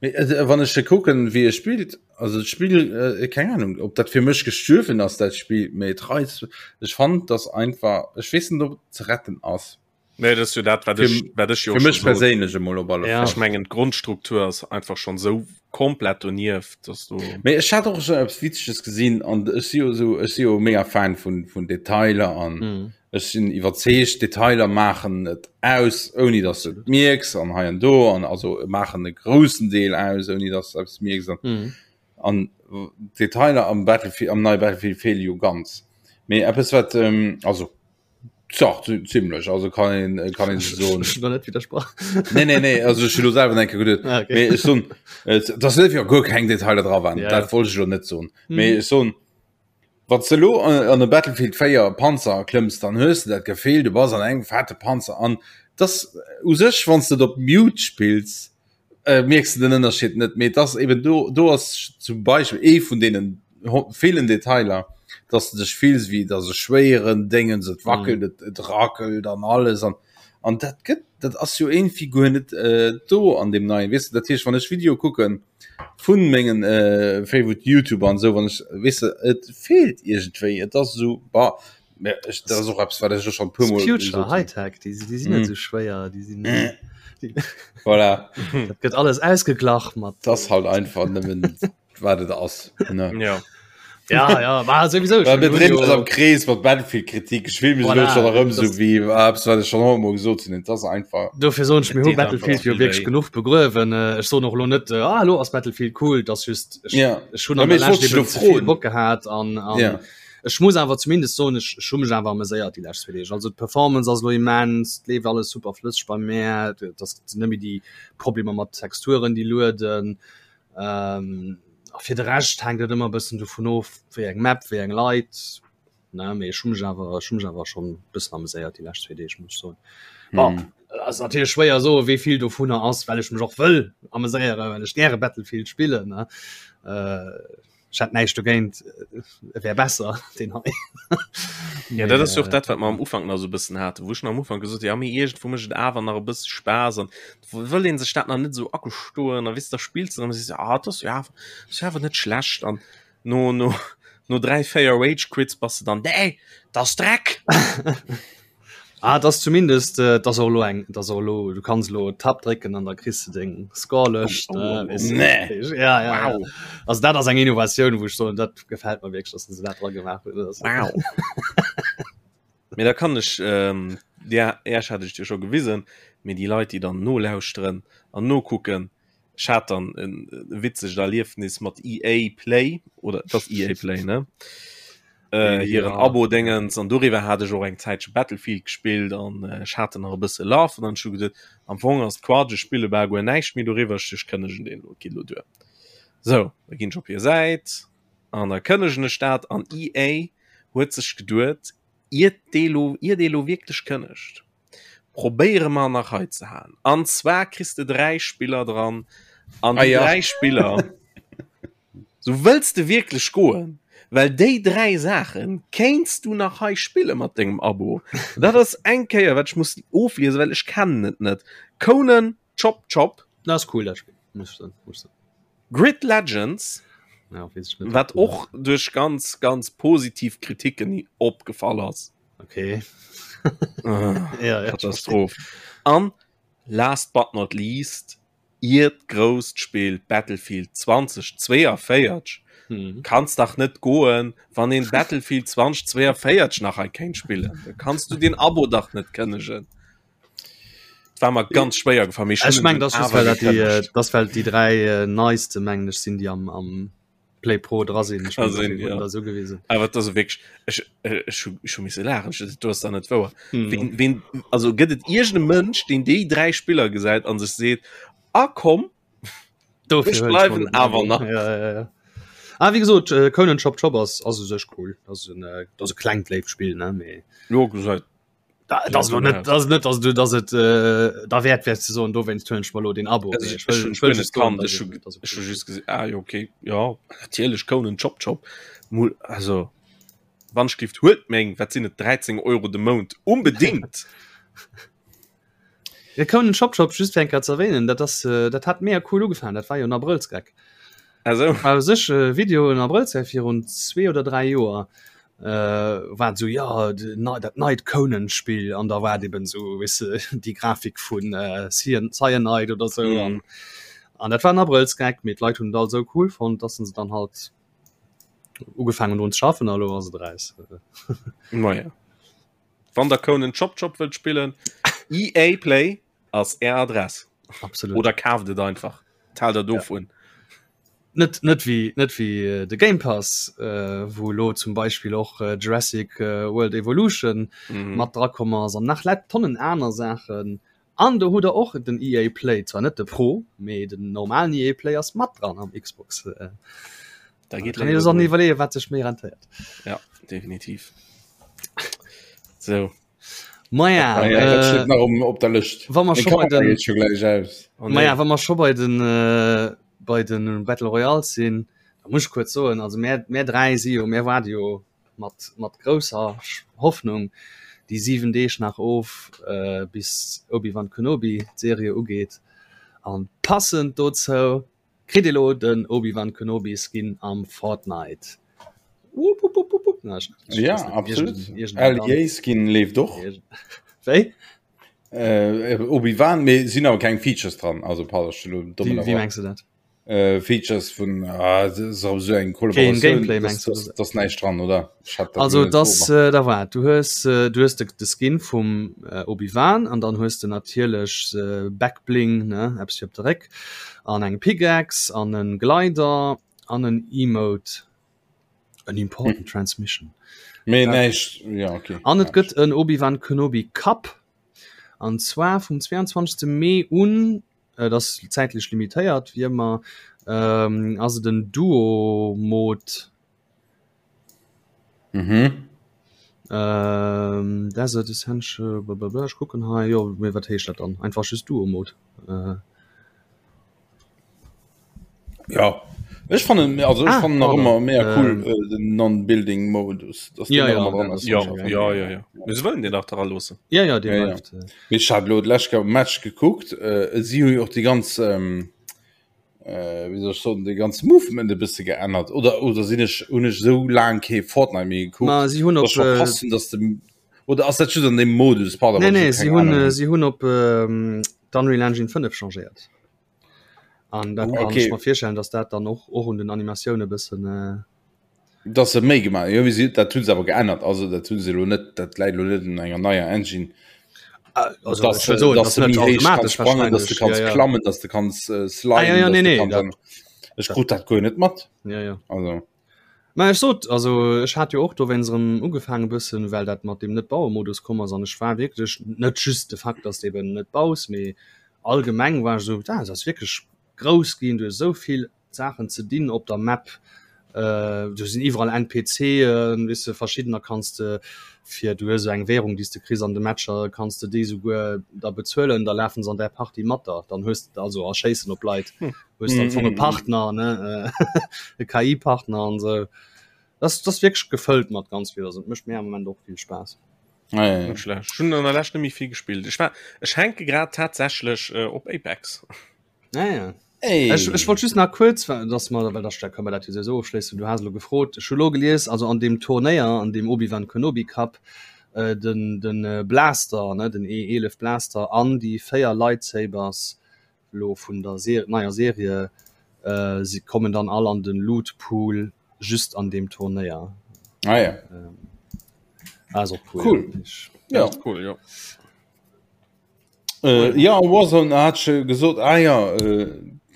Mee wann ech e kucken wéi e spillt, also d'Spill, keng Ahnung ob dat fir mech gestuerwen ass dat Spill, mee et reizt, ech fannen dass einfach, ech weess net ob et ze retten ass. Nee, dat ass jo dat, wat ech, wat ech jo Fir mech perséinlech emol op alle Fall. Ech mengen d'Grondstruktur ass einfach schon sou komplett donieft, dass du. Mee ech hat och schon eppes Witzeges gesinn an ech si jo sou, ech si jo mega Fan vun, vun Detailer an mm. ech sinn iwwerzeegt, Detailer maachen et aus, ouni dass du et mierks an hei an do an also maachen e groussen Deel aus, ouni dass du eppes mierks an, mm. an Detailer am Battlefield, am neie Battlefield fehle jo ganz. Mee eppes wat, ähm, also Zach, ziemlech also kann een äh, kann een so net widersprach nee nee nee also ech lo selber enke geduet ah, okay. mee ech soen äh, das net fir guer keng Detailer dra waren ja, dat wollt ech lo net soen mhm. mee ech soen wann du lo an, an de Battlefield 4 Panzer klëmms dann hues du dat Gefill du bass an engem fette Panzer an das u sech wann du op Mute spills äh, mierks du den Ënnerscheed net mee das eben do do ass zum Beispiel ee vun deenen villen Detailer dass du dech fills wéi dass e schwéieren Déngens et wackelt mm. et, et rackelt an alles an an dat gëtt dat ass jo irgendwie guer net äh, do an dem neien weißt du, dat heescht wann ech Video kucken vun mengen äh, favorite YouTuber an so wann ech weißt du, et fehlt irgendwie et ass so bah, Ja, ech, dat ass och eppes, wat ech schon puer Mol Future Hightech, déi, déi sinn net mm. sou schwéier, déi sinn mm. voilà. Dat gëtt alles ausgeglach mat. Das halt einfach nëmmen wat et ass. Ne? Ja. Ja, ja, war sowieso schon. Wir drehen uns am Kreis mat Battlefield-Kritik. Ich fühl mich voilà, schon erëm so wie eppes, wat ech schon hunnertmol gesot hunn. Das einfach. Dofir soen ech mir hu Battlefield jo wierklech genuch begruewen. Äh, ech soen och lo net äh, ah, lo ass Battlefield cool, das just ech, ja. ech hunn an der Lescht eben ze vill Bock gehat an, an ja. Ech muss awer zumindest soen, ech ech hu mech awer ameséiert déi lescht zwee Deeg. Also d'Performance ass elo immens, et leeft alles super flësseg bei mär, et ass sinn net méi déi Problemer mat Texturen déi lueden. A fir de Rescht hänkt et ëmmer e bëssen dovun of, wéi eng Map, wéi eng Leit, ne. Mee ech hu mech awer ech hu mech awer schonn e bëssen ameséiert déi lescht zwee Deeg, muss ech soen. Bon, ass natierlech schwéier soe wéi vill dovunner ass, well ech mech och wëll ameséieren, well ech gäre Battlefield spillen, ne. Ech hätt näischt dogéint, e wär besser deen hei. Ja, dat ass jo och dat, wat mer am Ufank nach esou e bëssen haten, wou ech nach am Ufank gesot hunn, ja mee iergendwou mécht et awer nach e bësse Spaass an wëll ee sech dat nach net esou agestoen a weess de, da spills de an da sees de, ah dat ass jo awer, ass jo awer net schlecht an no, no, no 3, 4 Rage Quits bass de dann, nee, dat ass Dreck! Ah, das zumindest äh, das och lo eng das och lo du kannst lo Tab drécken an da kriss du deng Scorelëscht oh, oh, oh, oh. Nee. Ja, ja, wow. ja. Also dat ass eng Innovatioun, wou ech soen, dat gefällt mir wierklech, dass se dat dra gemaach hunn. Wow. Mee da kann ech ähm, ja, erst hat ech dir scho gewisen, mee déi Leit, déi dann nolauschteren an nokucken, Ech hat dann en witzegt Erliefnis mat EA Play oder das EA Play ne äh, hiren ja. Abo Dingens an doriwwer hat ech och eng Zäitche Battlefield gespillt an äh, ech hat nach e bësse Laf an dann scho geduet am Fong ass d'Quatsch ech spille bal guer näischt méi doriwwer ech kënnegen deen lo geet lo duer. Sou da ginn ech op hir Säit an da kënnegen ech dat an EA huet sech geduet iert dee lo iert ee lo wierklech kënnegt probéiere mer nach hei ze halen. An zwar kriss de 3 Spiller dran an ah, déi ja. 3 Spiller so wëlls de wierklech goen, well déi 3 Saachen kéints du nach hei spille mat dengem Abo. Dat ass eng Kéier wat ech muss ofliese, well ech kennen et net. Conan Chop Chop. Dat ass cool dat Spill. Muss ich muss ich sagen. Grid Legends. Ja, weess ich net. Wat och duerch ganz ganz positiv Kritiken opgefall ass. Okay. ah, ja, ja, Katastroph. An last but not least, iert grousst Spill Battlefield 2042 hm. kannst dach net goen, wann een Battlefield 2042 nach ein kéint spillen. Da kannst du den Abo dach net kënnegen. War mer ganz schwéier gefall. Ech meng das well dat déi, äh, das well déi drei äh, neiste mengen ech sinn, déi am, am Play Pro dra sinn. Ech mein, sinn, ja. da so gewesen. Awer dat ass wierklech ech äh, ech hu ech hu misse laachen. Ech, du ass da net wouer. Hm. Ween, ween, also gëtt et iergende Mënsch, deen déi 3 Spiller gesäit an sech seet, ah komm, Dofir ech huel ech bleiwen mol den awer Abo. nach. Ja, ja, ja. Ah, wie gesot, äh, Conan Chop Chop ass ass u sech cool. Das ass en, äh, das ass e klengt léift Spill, ne, mee Jo, gesäit. Dat ass lo net, dat ass net, dass du, dass et äh, da wäert wär ze soen, dowéinst huelen ech mer lo den Abo. Also Mee ech ech wëll, ech ech wëll hun just net soen, kannt, dass ech et, hu dass et ech cool hu ass. just gesinn, ah jo okay, jo natierlech Conan Chop Chop mol also wann ech gift huelt meng, wat sinn et 13 Euro de Mount unbedingt. Ja, Conan Chop Chop just fir eng Kéier ze erwähnen, dat ass äh, dat hat mega cool ugefaangen, dat war jo en Abrëllsgeck. Also War u sech e Video en Abrëllsgeck virun zwee oder dräi Joer äh, war et sou ja de nei dat neit Conan Spill an da war et eben sou weess de déi Grafik vun äh, Cyan Cyanide oder sou an mhm. an dat war en Abrëllsgeck, mee d'Leit hunn et all sou cool fonnt, dass se dann halt ugefaangen drun ze schaffen a lo ass et eraus. Naja. Wann der Conan Chop Chop wëllt spillen, EA Play ass är Adress. Absolut. Oder kaaft et einfach. Taalt der dovun. Ja. Net, net wéi, net wéi äh, de Game Pass, äh, wou lo zum Beispill och äh, Jurassic äh, World Evolution Mhm. mat dra komm ass an nach lett Tonnen aner Saachen. An do hutt der och den EA Play, zwar net de Pro, mee den normalen EA Play ass mat dran am Xbox. Äh, Da geht kann ee sech iwwerleeën, wat sech méi rentéiert. Ja, definitiv. So. Maja, Ah, ja, dat äh, steet nach um, op der Lëscht. wa mer Meng scho bei Kamera den geet scho gläich aus. Oh, nee. Maja, wa mer scho bei den äh, bei den Battle Royales sinn, da muss ech kuerz soen, also mär, mär dräi si jo, mär waarde jo mat, mat grousser Hoffnung déi 7 Deeg nach of, äh, bis Obi-Wan Kenobi d'Serie ugeet. An passend dozou kritt ee lo den Obi-Wan Kenobi Skin am Fortnite. Wupp, wupp, wupp, wupp, wupp. Na, ech, ech Ja, weess net, absolut. iergend, iergend eng LEA Skin leeft och. Iergend, wéi? Äh, Obi-Wan, mee sinn awer keng Features dran, also pardon, ech hunn elo domm Wéi, wéi ënnerbrach. mengs du dat? Äh, Features vun ah, das ist awer sou eng Keen Kollaboratioun, Gameplay das, mengs du? das, das näischt dran, oder? Ech hat dat Also net das beobachtet. äh, da war du hues äh, du hues de, de Skin vum äh, Obi-Wan an dann hues de natierlech äh, Backbling ne eppes fir op de Réck an eng Pickaxe an en Glider an en Emote en important Transmission. Mee Ja. näischt, ja okay. An et Näischt. gëtt en Obi-Wan Kenobi Cup an zwar vum 22. Mee un Et ass zäitlech limitéiert, wéi ëmmer. Ähm, ass et en Duo-Mode? Mhm. Ähm, Desert Essential, blablabla. Ech kucken hei. Jo, mee wat heescht dat dann? Einfach just Duo-Mode. Äh. Ja. Ech fannen also ech Ah, fannen nach pardon. ëmmer mega cool Ähm. äh, den Non-Building Modus, dass Ja, deen nach ja, ëmmer dran dat ass. ass Ja, schon geil. ja, ja, ja. Mee se wëllen deen nach dra loossen. Ja, ja, dee Ja, ja. bleift. Äh. Mee ech hat elo d'lescht Kéier Match gekuckt, äh, si hu jo och déi ganz ähm, äh, wéi soll ech soen, de ganz Movement e bësse geännert oder oder sinn ech hunn ech esou laang kee Fortnite méi gekuckt, Ma si hunn dass op ech verpasst hunn, dass de oder ass dat just an deem Modus, pardon, Nee, wann ech nee, elo si keng hunn Ahnung äh, hunn. si hunn op ähm, d'Unreal Engine 5 changéiert. An dat kann Okay. ech mer virstellen, dass dat dann och och un den Animatioune bëssen äh, Dass se méi gemaach jo, si dat hunn se awer geännert, also dat hunn se elo net, dat läit elo net un enger neier Engine. Ah, also, dass ech wëll soen, dass dass de net méi héich kanns automatesch sprangen, dass de wahrscheinlech, kanns ja, ja. klammen, dass de kanns äh, Ah, sliden, ja, ja, dass nee, de nee, kanns dat, an Ech krut dat guer net mat. ja, ja. Also. Mä ech sot, also ech hat jo och dowéinst erëm ugefaange bëssen, well dat mat deem Net-Baue-Modus komm ass an ech war wierklech, net just de Fakt, dass de eben net baus, mee allgemeng war ech esou, ah, et ass wierklech grouss ginn, du hues esou vill Saachen ze dinn op der Map, do sinn iwwerall NPCen, weess de, verschiddener kanns de fir, du hues esou eng Währung, déi s de kriss an de Matcher, kanns de déi souguer da bezuelen, da lafen se an där Partie mat der, dann hues de, also a schéissen op Leit, hues de am Fong e Partner, ne, e KI-Partner an esou. Dat ass wierklech gefëllt mat ganz vill, also et mécht mir am Moment och vill Spaass. Ah, ja, ja. Net schlecht. Ech hunn an der Lescht net méi vill gespillt. Ech war, ech hänke grad tatsächlech äh, op Apex. Ah, ja. Ey. Ech, ech wollt just nach kuerz, well dass mer, well da kënne mer dat jo souwisou ofschléissen, du has elo gefrot, ech hu lo gelies, also an deem Turnéier, an deem Obi-Wan Kenobi Cup, äh, den, den äh, Blaster, ne, den E11 Blaster an déi 4 Lightsabers lo vun der Ser neier Serie, äh, si kommen dann all an den Loot Pool just an deem Turnéier. Ah, ja. Ähm, ass och cool. Cool. Ich, Ja. Das ist cool, ja. Äh, ja, Warzone hat scho gesot, ah ja, äh,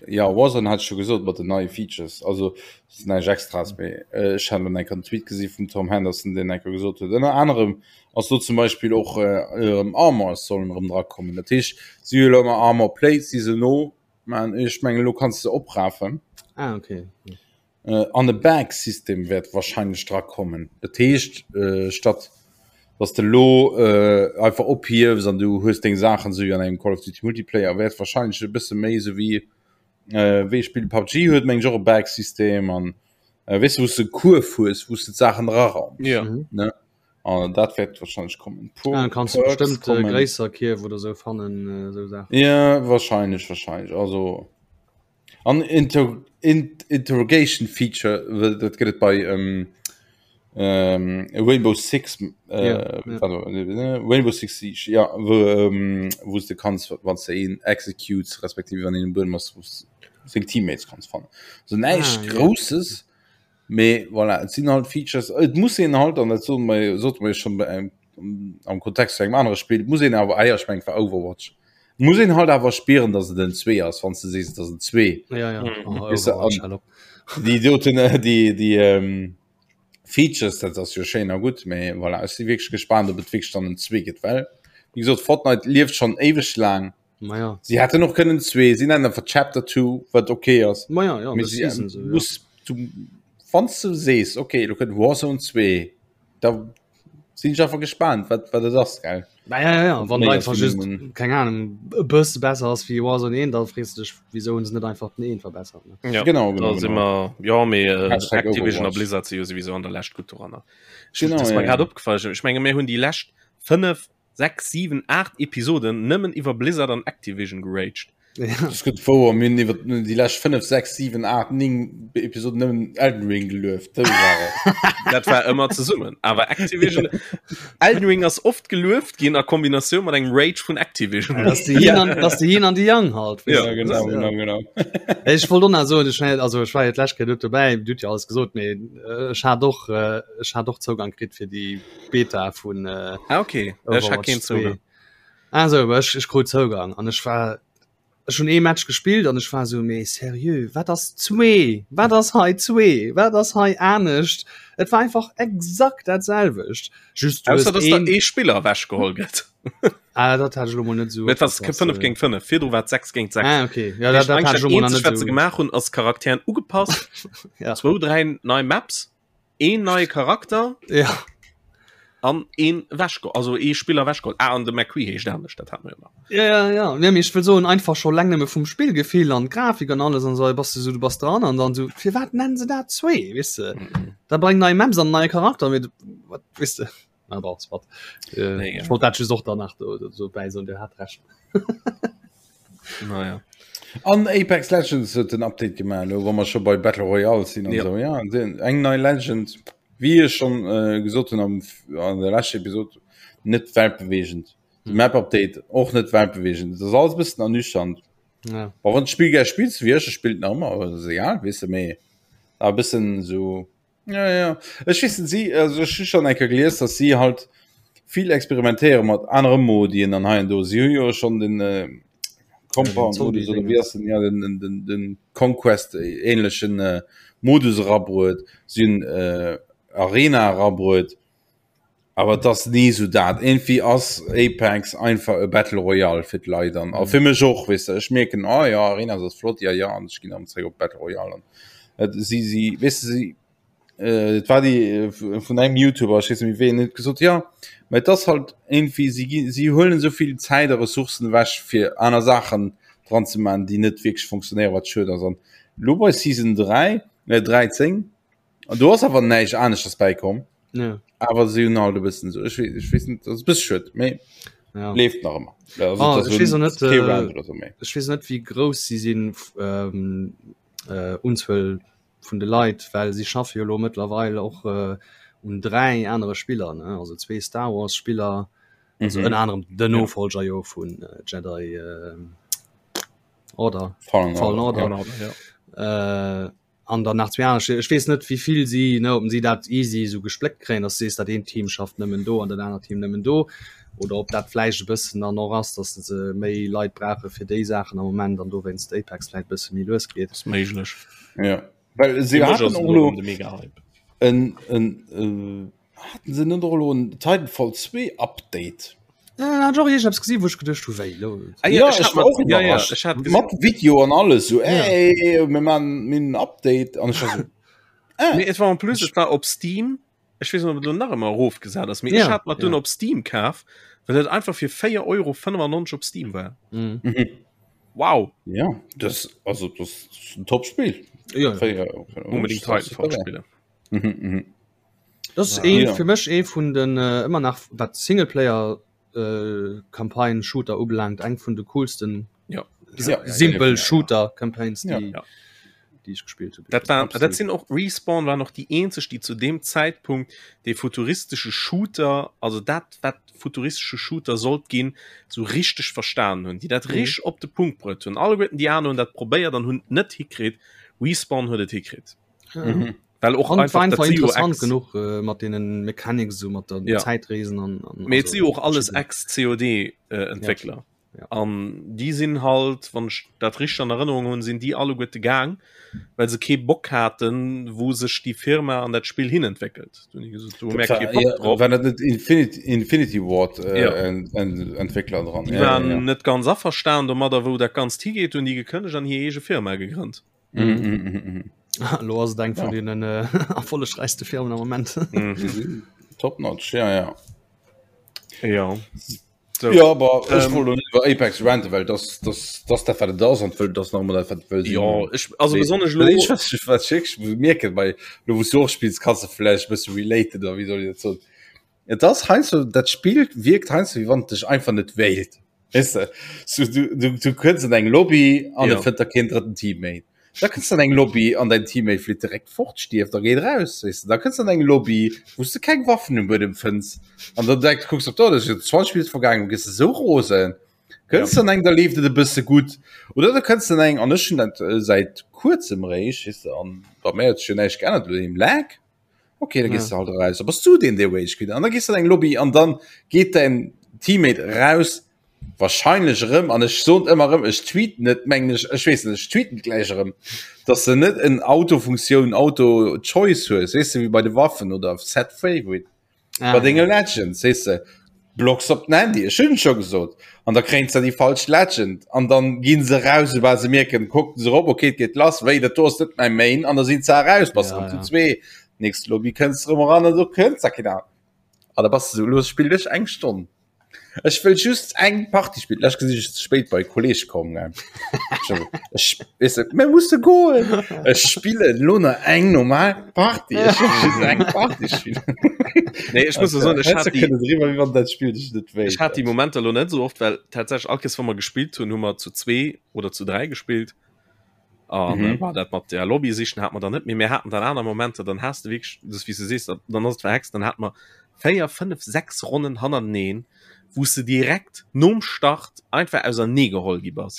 ja, Warzone hat scho gesot mat den neie Features, also das näischt extras méi. Äh, ech hat elo enker en Tweet gesi vum Tom Henderson, deen enker gesot huet, ënner anerem ass do zum Beispill och äh, erëm Armors sollen erëm drakommen. Dat heescht, si hu elo ëmmer Armor Plates, déi se no man, ech mengen elo kanns de se oprafen. Ah, okay. Äh, an e Bag-System wäert wahrscheinlech drakommen. Dat heescht, äh, statt. Dass de lo äh, einfach ophiefs an du hues deng Saachen sou an engem Call of Duty Multiplayer wäert wahrscheinlech e bësse méi sou wéi äh, wéi Spill PUBG huet meng och e Bag-System an äh, weess du, wou s de Kuerf hues, wou s de d'Saachen raraums. Ja. Mhm. Ne? An dat wäert wahrscheinlech kommen. Puer ah, kannst du bestimmt äh, gréisser Kierf oder sou fannen äh, sou Saachen. Ja, wahrscheinlech, wahrscheinlech. Also An Inter in Interrogation Feature dat gëtt et bei ähm, ähm, Rainbow Six äh, Ja, ja. also, äh, Rainbow Six Siege ja wo, ähm, wo du kannst wann du een executes respektive wann een Buedem ass wou seng Teammates kanns fannen so näischt Ah, ja. Grousses mee voilà et sinn halt Features et muss een halt an dat sote mer sote mer jo schon bei engem am Kontext zu engem anere Spill muss een awer ah ja, ech mengen et war Overwatch muss een halt awer spieren dass et en 2 ass wann s de sees et ass en 2 Ja, ja. Mhm. Oh, Weißt du, Overwatch, an- hallo. déi doten äh, déi déi ähm, Features dat ass jo schéin a gutt mee voilà ech si wierklech gespaant ob et wierklech dann en 2 gëtt well wéi gesot Fortnite lieft schonn éiweg laang Ma ja. si hätten och kënnen 2 si nennen einfach Chapter 2 wat okay ass Ma ja, ja, Mee das si, Season so, ja. muss du wann s du sees okay lo kënnt Warzone 2 da sinn ech einfach gespannt wat wat et ass gell Na ja, ja, ja. Wann Méi einfach ass just minimum. keng Ahnung e bësse besser ass wéi Warzone 1, da frees du dech wieso hunn se net einfach den 1 verbessert ne? Ja, Genau, genau, da si genau. mer ja mee äh, Hashtag Activision a Overwatch. Blizzard si jo sowieso an der Lescht gutt doranner. Ech- Genau, das ist mir ja, grad ja. opgefallen. Ech menge mir hunn déi lescht 5, 6, 7, 8 Episoden nëmmen iwwer Blizzard an Activision geraged. Ja. Das gëtt wouer mir hunn iwwer déi lescht 5, 6, 7, 8, 9 Episoden nëmmen Elden Ring gelueft. Dat war et. Dat war ëmmer zesummen. Awer Activision Elden Ring ass oft gelueft ginn a Kombinatioun mat engem Rage vun Activision. Das die Yin an, das die Yin an die Yang halt. Ja, Ja, genau, Ja. genau, genau. Ech wollt och nach soen, ech war- also ech war jo d'lescht Kéier net dobäi, du hutt jo alles gesot, mee äh, ech hat och äh, ech hat och Zougang kritt fir déi Beta vun äh, Ah, okay. Ech hat Overwatch keen 2. Zougang. Ah sou, awer ech, ech krut Zougang an ech war ech hunn ee Match gespillt an ech war sou, mee seriö, wat ass zwee? Wat ass hei zwee? Wat ass hei anescht? Et war einfach exakt dat selwecht. Just du hues Ausser dass der een ee Spiller ewechgeholl gëtt. Ah, dat hat ech elo mol net sou Et war opgepasst. 5 géint 5, virdru war et 6 géint 6. Ah, okay. Ja, dat, dat hat ech Dat elo mol nach eenzegt net wat se sou. gemaach hunn ass Charakteren ugepasst, Ja. zwou, dräi nei Maps, een neie Charakter Ja. an een ewechgeholl, also ee Spiller ewechgeholl. Ah, an de McCree heescht anescht, dat hat mer jo nach. Ja, ja, ja. Nee, mee ech wëll soen, einfach scho leng nëmme vum Spillgefill an d'Grafik an alles an esou, bass du sou, du bass dran an dann sou, firwat nennen se dat zwee, weess de? Da breng nei Maps an neie Charakter, mee wat, weess de? Ah, bon, soit. Äh, Nee, ja. ech wollt dat just och danach do, do, do bäi soen, Dir hat Recht. Naja. An Apex Legends huet den Update gemaach, elo wa mer scho bei Battle Royale sinn an Ja. esou. Ja, den, eng nei Legend, wéi ech schon äh, gesot hunn am, an der leschter Episode, net weltbewegend. De Map Update och net weltbewegend. Dat ass alles e bëssen ernüchternd. Ja. Awer wann d'Spill gär spills, wéi ech, ech spillt nach ëmmer, awer dat ass egal, weess de, mee awer e bëssen esou. Ja, ja. Ech weess net, si, also ech hu schon eng Kéier gelies, dass si halt vill experimentéiere mat anere Modien an hei an do. Si hu jo schon den äh, Compound Modus oder wéi ass den, ja, den, den, den, den Conquest ähnlechen äh, Modus erabruet. Si hunn äh, Arena erabruet. Awer et ass ni esou dat. Irgendwie ass Apex einfach e Battle Royale fir d'Leit an a fir mech och, weess de. Ech mierken, ah ja, Arena ass flott, ja ja, an ech ginn erëm zréck op Battle Royale an et si si weess de si et war déi vun engem Youtuber, ech weess net méi ween, huet gesot, jo, mä et ass halt irgendwie si gi si huelen esou vill Zäit a Ressourcen ewech fir aner Saachen dran ze maachen, déi net wierklech funktionéieren, wat schued ass. An elo bei Season 3, 13, An do ass awer näischt aneschters bäikomm. Ja. Awer si hunn halt e bëssen esou, ech weess, ech weess net, ass e bësse schued, mee ja. leeft nach ëmmer. Also, Ah, et ass ech weess och net, kee äh, Round oder sou méi. Ech weess net wéi grouss si sinn ähm, äh, Unzuel vun de Leit, well si schaffe jo lo mëttlerweil och äh, un 3 anere Spiller, ne? Also zwee Star Wars Spiller, also Mhm. ënner anerem den Nofolger jo vun äh, Jedi äh, Order, Fallen Fallen Order, Order. ja. Ja. Äh, an dann nach zwee aner Spill. Ech weess net wéi vill si ne ob si dat easy esou gespléckt kréien, dass du sees dat eent Team schafft nëmmen do an dat anert Team nëmmen do oder ob dat vläicht e bëssen dann och ass, dass se méi Leit brauche fir déi Saachen am Moment an dowéinst Apex vläicht e bësse méi lues geet. Ass méiglech. Ja. Well si Fir mech haten ass och et elo elo de Mega-Hype. en, en, äh, Haten se net och elo en Titanfall 2 Update? Äh, hat ech och iergendeppes gesinn, wou ech geduecht hu wéi lo? Ah, Ja, ech ech hat war mat- och ja, ja, iwwerrascht. ech hat gesinn. Mat Video an alles so Ja. ey, mir man mir en Update an ech war so Nee, et war en plus, et war op Steam. Ech weess net, ob et elo nach ëmmer erofgesat ass, mee ech hat mer et dunn op Steam kaf, well et einfach fir 4,95 Euro op Steam war. Wow! Ja, das, also, das ist ein Top-Spiel. Ja, ja. Unbedingt Titanfall spillen. Mhm, mhm. Das ist ee, fir mech ee vun den äh, ëmmer nach wat Singleplayer äh, Campaign Shooter ubelaangt eng vun de coolsten ja. ja, simpel Shooter Campaigns déi, ja. déi ech gespielt hunn. Dat, war, dat sinn och Respawn war noch déi eenzeg, déi zu dem Zäitpunkt de futuristesche Shooter, also dat wat futuristesche Shooter sollt ginn, sou richteg verstanen hunn, déi dat mhm. richteg op de Punkt bruet hunn. Alleguerten déi aner hunn dat probéiert an hunn net hikritt. Respawn huet et hikritt. Ja. Mhm. Well och einfach, einfach interessant genug äh, mat denen Mechanics so mat der ja. Zeitreesen an, an also, si och alles ex COD äh, Entwickler. Ja. Ja. An déi sinn halt, wann ech dat richteg an Erënnerung hunn, sinn déi alleguerte gaang, well se kee Bock haten, wou sech déi Firma an dat Spill hin entwéckelt. Do hunn déi gesot, do hu mir kee Bock drop. War dat net Infinity, Infinity Ward äh, Ja. en, en, Entwickler dran? Déi waren net ganz averstan domadder, wou dat Ganzt higeet, hunn déi gekënnegt an hir eege Firma gegrënnt. Mhm, mhm, mhm, mhm. Lo ass et eng vun Ja. deenen äh, erfollegräichste Firmen am Moment. Mhm. Top notch, ja, ja. Ja. So. Ja, aber ech ähm, wollt iwwer Apex ranten, well das, das, das dat wat das an wëll das nach dat wat wëll Ja ich, also besonnesch lo ich, was, ich, was schick, mirken bei lo wos du och spielst kannst du vielleicht bist related oder wie soll ich dat so Et das heinsdo dat Spiel wirkt heinsdo wie wann dech einfach net wéilt. Weißt du, so, du, du, du kënns an eng Lobby an Ja. ja. fënnt der keen drëtten Teammate. Da kënns an eng Lobby an dein Teammate flitt direkt fort, stierft a geet raus. Weißt du? Da kënns an eng Lobby, wou s du keng Waffen um Buedem fënns. An dann direkt kucks op da, das ist 20 Minuten vergaangen, du gëss esou rosen. Kënns an eng, da leeft et e bësse gutt. Oder du kënns an eng, an ech hunn dat äh, säit kuerzem réischt, weißt du, an bei mir huet sech jo näischt geännert, lo dem Lag. Okay, da gehst ja. du halt raus. Da bist du den, der Rage quit. An da gehst du in eng Lobby an dann geht dein Teammate raus, wahrscheinlich erëm, an ech soen ëmmer erëm, ech tweeten net, mengen ech, ech weess net, ech tweeten gläich erëm, dass du net en Autofunktioun, Auto-Choice hues, weess du, wéi bei de Waffen oder Set Favorite. Ah, Bei denge Legends, weess de, blocks op den Handy, ech hunn et scho gesot, an da kréien se déi falsch Legend an dann ginn se raus, soubal se mierken, kucken se erop, okay, et geet lass, wéi, dat do ass net mäi Main, an da sinn se eraus, bass Ja, erëm zu ja. zwee, nächst Lobby kënns de erëm eran an do kënns da keen aner. An da bass de sou, elo spillen ech eng Stonn. Ech wëll just eng Partie spillen. Lech gesinn ech ze spéit bei Kolleg komm. Ech weess net, mir musse goen. Ech spillen lo nach eng normal Partie. Ech wëll just eng Partie spillen. Nee, ech muss soen, ech hat déi, driwwer, wéi wann dat Spill dech net wéilt. ech hat déi Momenter lo net sou oft, well tatsächlech all Kéiers, wa mer gespillt hunn, hu mer zu zwee oder zu dräi gespillt. An Mhm. mhm. war dat mat der Lobby sichen hat man dann net méi. Mir haten dann aner Momenter, dann has de wierklech, das wéi s du sees, dann ass et verhext, dann hat mer 4, 5, 6 Ronnen hannerteneen, wou s de direkt nom Start einfach ausernee geholl gi bass.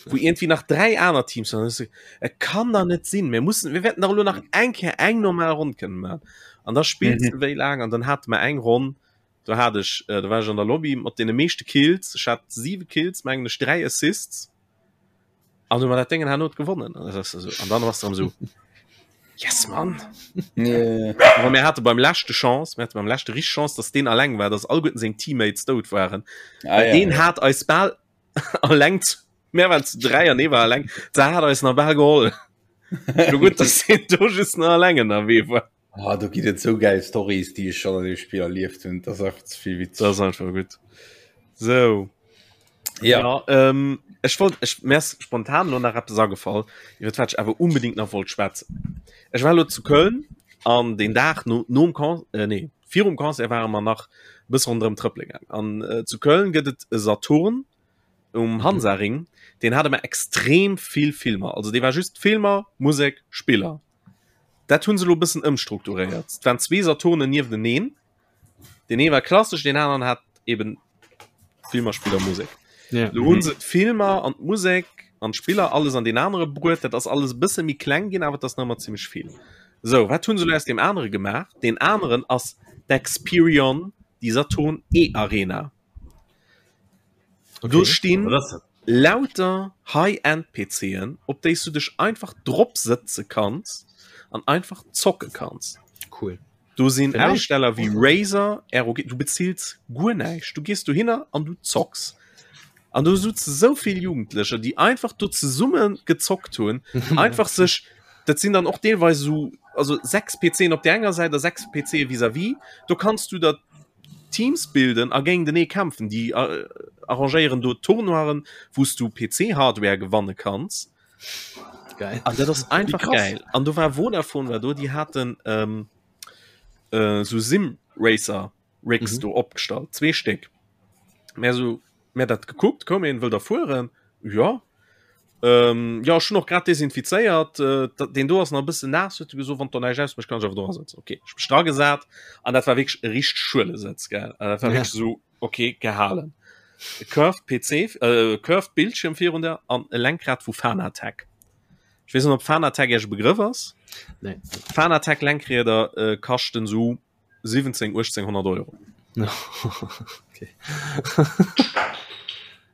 Wou irgendwie nach 3 aner Teams waren. Dann Et kann da net sinn, mir mussen, mir wäerten dach elo nach eng Kéier eng normal Ronn kënnen maachen. An da spills Mhm. de wéi laang an dann hate mer eng Ronn, do hat ech, äh, do war ech an der Lobby mat deene meeschte Kills, ech hat 7 Kills, mengen ech, 3 Assists. An du mat dat Déngen herno gewonnen. An das so, an dann warst du so Yes Mann. Yeah. Aber mir hatte beim leschte Chance, mir hatte beim leschte richtig Chance, dass den alleng war, dass alleguerten seng Teammates dout waren. Ah, Well ja, den ja. hat eis bal alleng zu, mir waren zu dräi an ee war alleng, da hat eis nach bal geholl. Lo gutt, dass den do just nach alleng ënnerwee war. Ah, do ginn et sou geil Stories, déi ech schon an dem Spiel erlieft hunn. Das ass einfach ze vill witzeg. Das ist einfach gut. So. Ja. ja ähm, ech wollt ech mir ass spontan lo nach eppes agefall, iwwer wat ech awer unbedingt nach wollt schwätzen. Ech war lo zu Köln an den Dag no nom Con äh, nee, virum Concert ware mer nach e bësse ronderëm trëppele gaang. An äh, zu Köln gëtt et e Saturn um Hansaring, deen hat ëmmer extrem vill Filmer. Also dee war just Filmer, Musek, Spiller. Dat hunn se lo e bëssen ëmstrukturéiert. Et waren zwee Saturnen niefteneen. Deen ee war klassesch, deen aneren hat eben Filmer, Spiller, Musek. Ja. Lo hunn se d'Filmer an d'Musek an d'Spiller alles an deen anere bruet. Dat ass alles e bësse méi kleng ginn, awer et ass nach ëmmer zimmlech vill. Sou, wat hunn se lo aus deem anere gemaach? Deen aneren ass d'Experion, déi Saturn E-Arena. Okay. Do stinn Was ass dat? lauter High-End-PCen, op déi s du dech einfach drop sëtze kanns an einfach zocke kanns. Cool. Do sinn Vielleicht. Hersteller wéi Razer, ROG, du bezills guer näischt. Du gees dohinner an du zocks. An do souze sou vill Jugendlecher, déi einfach do zesumme gezockt hunn, einfach sech, dat sinn dann och deelweis esou. also 6 PCen op der enger Säit a 6 PC vis-à-vis. Do kanns du der Teams bilden a géintenee kämpfen. Déi äh, arrangéieren do Tournoiren, wou s du PC-Hardware gewanne kanns. Geil. An dat ass einfach krass. geil. An do war Vodafone war do, déi haten ähm, äh, sou Sim Racer Rigs Mhm. do opgestallt, zwee Stéck. Mär sou, mär dat gekuckt, koum een, wëll der fueren? Ja. Ähm, ja, ech hunn och grad desinfizéiert, äh, dat, deen do ass nach e bëssen naass, huet e gesot, wann der näischt ausmécht, kann ech awer do asëtzen. Okay, ech mech dragesat an dat war wierklech e richteg Schuelesëtz, gell. An dat war Ja. wierklech sou, okay, gehalen. E curved PC, äh, curved Bildschirm virun der an e Lenkrad vu Fanatec. Ech weess net, ob Fanatec Iech e Begrëff ass. Nee. Fanatec Lenkrieder äh, kaschten sou 17, 1800 Euro. okay.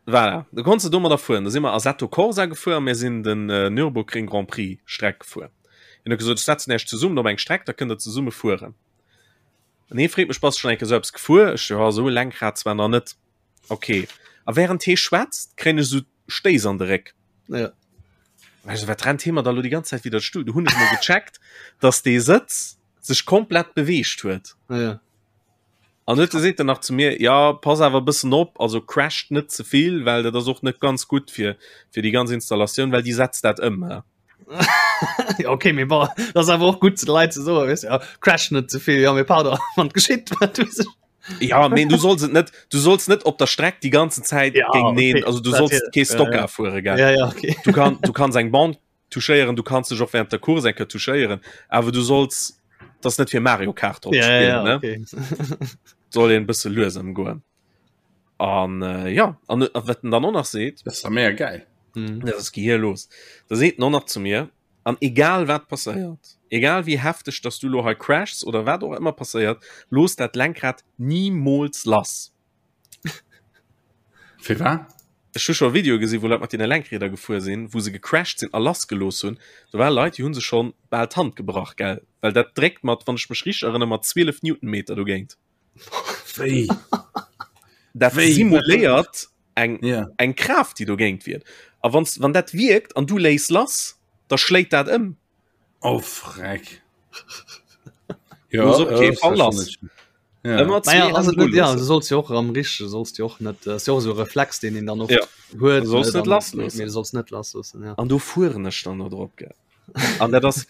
Voilà, du konntest domadder fueren. Da si mer Assetto Corsa gefuer a mir sinn den äh, Nürburgring Grand Prix Streck gefuer. Hien huet gesot, ech setzen Iech zesummen op eng Streck, da kënnt der zesumme fueren. An hie freet mech, bass du schon eng Kéier sou eppes gefuer? Ech so, ja, sou e Lenkrad zwar nach net. Okay. A während hie schwätzt, kréien ech sou Stéiss an de Réck. Ja. Weißt du, wat rennt hie mer da lo déi ganz Zäit widder Stull? Du hunn ech mol gecheckt, dass dee Sëtz sech komplett beweegt huet. Ja. An huet seet en nach zu mir, ja pass awer e bëssen op, also crasht net ze vill, well dat ass och net ganz gutt fir fir déi ganz Installatioun, well déi setzt dat ëm. He. ja, okay, mee bon, dat ass awer och gutt ze de Leit ze soen, weess du, ja, crash net ze vill, ja, mee pardon, wann et geschitt, wat weess ech. Ja, mee du solls et net, du solls net op der Streck déi ganzen Zäit Ja, géinteneen, okay, also du dat solls hier, kee ja, ja. Stocker fuere, gell. Ja, ja, okay. Du kann, du kanns eng Bande touchéieren, du kanns dech och während der Course eng Kéier touchéieren, awer du solls das net fir Mario Kart drop Ja, spillen, ja, ne? okay. Soll een bësse lues ëmgoen. An äh, ja, an äh, wat en dann och nach seet, Das ist mega geil. Mhm. das ist gehirlos. Da seet en och nach zu mir, an egal wat passéiert, egal wéi hefteg dass du lo hei crashs oder wat och ëmmer passéiert, looss dat Lenkrad nimools lass. Fir wat? Ech hu scho Videoe gesi wou Leit mat deene Lenkrieder gefuer sinn, wou se gecrashed sinn a lassgelooss hunn. Do ware Leit, déi hu sech schonn bal d'Hand gebrach, gell, well dat dréckt mat, wann ech mech richteg erënnere, mat 12 Newtonmeter dogéint. Wéi? Dat Wéi? simuléiert eng, Ja. eng Kraaft, déi dogéint wierkt. A wanns, wann dat wierkt an du léiss lass, da schléit dat ëm. Oh freck. Ja, Muss op äh, kee das Fall war lass. schon nicht- Ja. Ëmmer Naja, zwee also, Hänn ja, loossen. du sollst jo och am richtege sollst jo och net äh, ass jo och esou e Reflex deen een dann oft Ja. huet Du solls ne, net dann- lassloossen. mee du solls net lassloossen ja. An do fueren ech dann do drop, gell. An dat ass,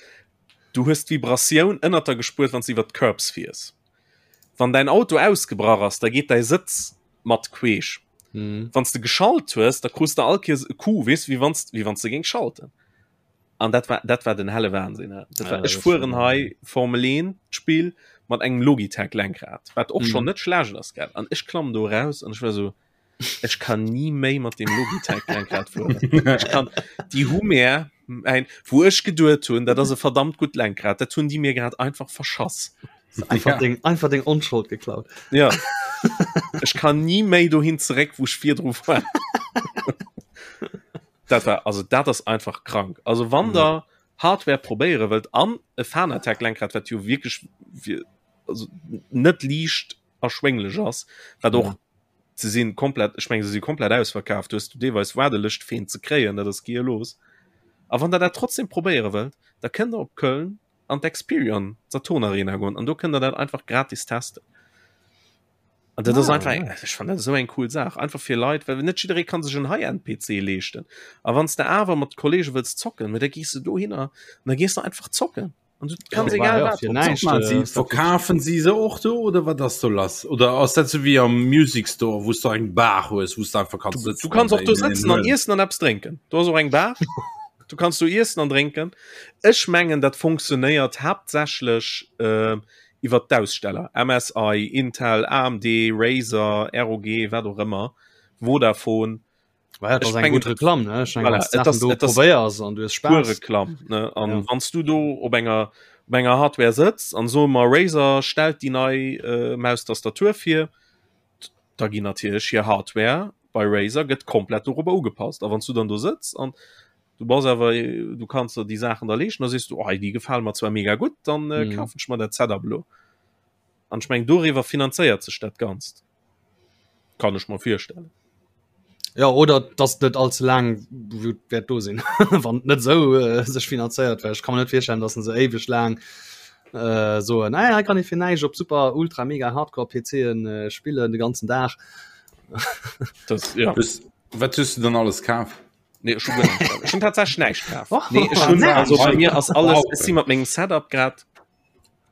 du hues d'Vibratioun ënnert der gespuert, wann s du iwwer d'Curbs fiers. Wann däin Auto ausgebrach ass, da geet däi Sëtz mat queesch. Mhm. Wann s de geschalt hues, da krus de all Kees e Coup, weess, wéi wann s, wéi wann s de géings schalten. An dat war, dat war den helle Wahnsinn. Ne? Dat war, Ja, ech dat fueren schon. hei Formel 1 Spiel mat engem Logitech Lenkrad, wat och Mhm. schon net schlecht ass, gell? An ech klamm do raus an ech war so, ech kann nie méi mat dem Logitech Lenkrad fueren. Ech kann, déi hu mir ein, wou ech geduet hunn, dat ass e verdammt gutt Lenkrad, dat hunn déi mir grad einfach verschass. Einfach, Ja. deng, einfach deng Onschold geklaut. Ja. Ech kann nie méi dohin zeréck, wou ech virdru war. Dat war also dat ass einfach krank. Also wann Mhm. der Hardware probéiere wëllt an e Fanatec Lenkrad, wat jo wierklech fir, also net liicht erschwénglech ass, wat och Mhm. se sinn komplett, ech meng se si komplett ausverkaaft, du hues du deelweis Waardelëscht fir een ze kréien, dat ass gehirlos. A wann der dat trotzdem probéiere wëllt, da kënnt der op Köln an d'Experion Saturn Arena goen an do kënnt der dat einfach gratis testen. An dat ass Ah, einfach eng, nice. ech fand dat esou eng cool Saach, einfach fir Leit, well net jidderee kann sech en High-End-PC leeschten. A wann s de awer mat Kollege wëlls zocken, mä da gees de dohinner an da gees de einfach zocken. An du kanns Ja, egal ja, wat fir drop näischt. zocken. Mal, sie, äh, ist dat verkaufen sie se och do oder wat ass do lass? Oder ass dat so wie am Music Store, wou du eng Bar hues, wou du einfach kannst Du, sitzen du kanns an och do dein- sëtzen an iessen an eppes drénken. Do ass och eng Bar. Du kanns do iessen an drénken. Ech mengen, dat funktionéiert haaptsächlech äh, iwwer d'Aussteller, MSI, Intel, AMD, Razer, ROG, wat och ëmmer, Vodafone. Well, dat Ech ass eng mengen, gutt Reklamm, ne? Ech mengen, Voilà, wann du et ass- Saachen do et ass probéiers an du hues pur Spaass. Reklamm, ne? An Ja. wann s du do op enger op enger Hardware sëtz an soe mer Razer stellt déi nei äh, Maustastatur vir, da ginn natierlech hir Hardware bei Razer gëtt komplett dorobber ugepasst. A wann s du dann do sëtz an du bass awer du kanns der déi Saachen da leeschten, da sees du, oh, déi gefale mer zwar mega gutt, dann äh, Mhm. kafen ech mer dat Setup elo. An ech meng doriwwer finanzéiert sech dat Ganzt. Kann ech mer virstellen. Ja oder dass net all ze laang wäert do sinn wann net sou äh, sech finanzéiert well ech kann mir net virstellen, dass se éiweg laang äh, soen ah, hei kann ee fir näischt op super ultra mega hardcore PCen äh, spillen de ganzen Dag. Das, ja. Hues, wat hues du dann alles kaf? Nee, ech hu guer näischt kaf. Ech hunn tatsächlech näischt kaf. Oh, Nee, ech hunn, näischt. also bei mir ass alles, Wow. ech si mat mengem Setup grad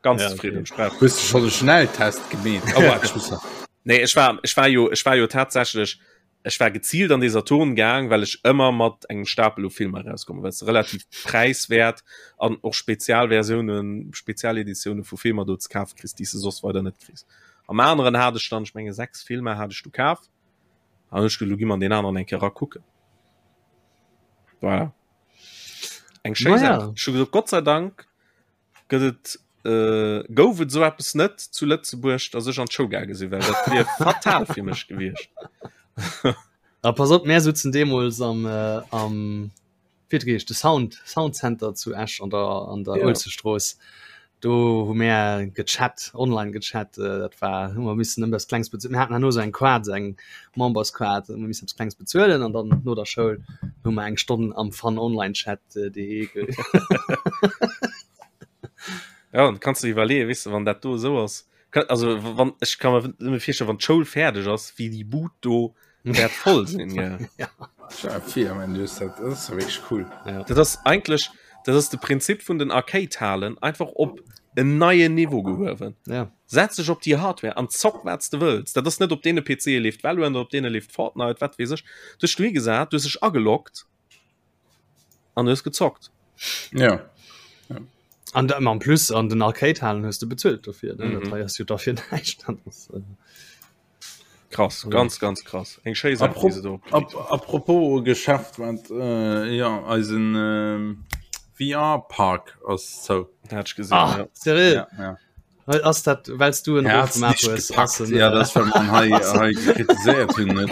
ganz Ja, zufrieden. okay. Ech brauch Hues du schon de Schnelltest gemeet? Oh, warte, ich muss nach. Nee, ech war, ech war jo, ech war jo tatsächlech, ech war gezielt an de Saturn gaang, well ech ëmmer mat engem Stapel u Filmer erauskommen, well se relativ präiswäert an och Spezialversiounen, Spezialeditioune vu Filmer do ze kafe kriss, déi s de soss weider net kriss. Am aneren hat ech dann, ech menge 6 Filmer hat ech du kaf, an ech gesot, lo gi mer an deen aneren eng Kéier erakucken. Voilà. Eng schéi Naja. Saach. Ech hu gesot, Gott sei Dank gëtt et äh, gouf et sou eppes net zu Lëtzebuerg, datt ech an d'Show gaange sinn, well dat wier fatal fir mech gewiescht. A pass op, mär sutzen deemools am äh, am wéi huet e geheescht, de Sound Sound Center zu Esch an der an der Ja. Uelzechtstrooss. Do hu mär gechat, online gechat, äh, dat war hu mer missen ëmmer eppes Klengs bezuelen. Mir haten herno sou eng Kaart, sou eng Memberskaart, hu mer missen eppes Klengs bezuelen an dann no der Schoul hu mer eng Stonn am Fun Online Chat äh, de Ja, und kannst du iwwerleeën, weess du, wann dat do esou ass, kann, also wann ech kann mir nëmme virstellen, wann d'Schoul fäerdeg ass, wéi déi Bud do wäert voll sinn, gell. Ja. Ja, fir, man, du hast dat, das ist ja wirklich cool. Ja. Dat ass eigentlech, dat ass de Prinzip vun den Arcade-Halen einfach op en neien Niveau gehuewen. Ja. Setz dech op déi Hardware an zock wat s de wëlls. Dat ass net op deene PCe leeft Valorant oder op deene leeft Fortnite, wat weess ech. Du hues dech dohi gesat, du hues dech ageloggt an du hues gezockt. Ja. An da, en plus an den Arcade-Halen hues du bezuelt dofir, ne? Mhm. Dat hei ass jo dafir näischt. Dat ass, äh, Krass, ganz, ganz krass. Eng schéi Saach, déi se do opgekritt Ap apropos Geschäft, wat äh, ja, eisen äh, VR-Park ass zou. Hat ech gesinn, Ah, ja. seriö? Ja, ja. Ass dat wells du en Er Ruf hat's gemaach nicht hues? gepackt. Ass en, Ja, äh, das well man hei, hei kritiséiert hunn. net.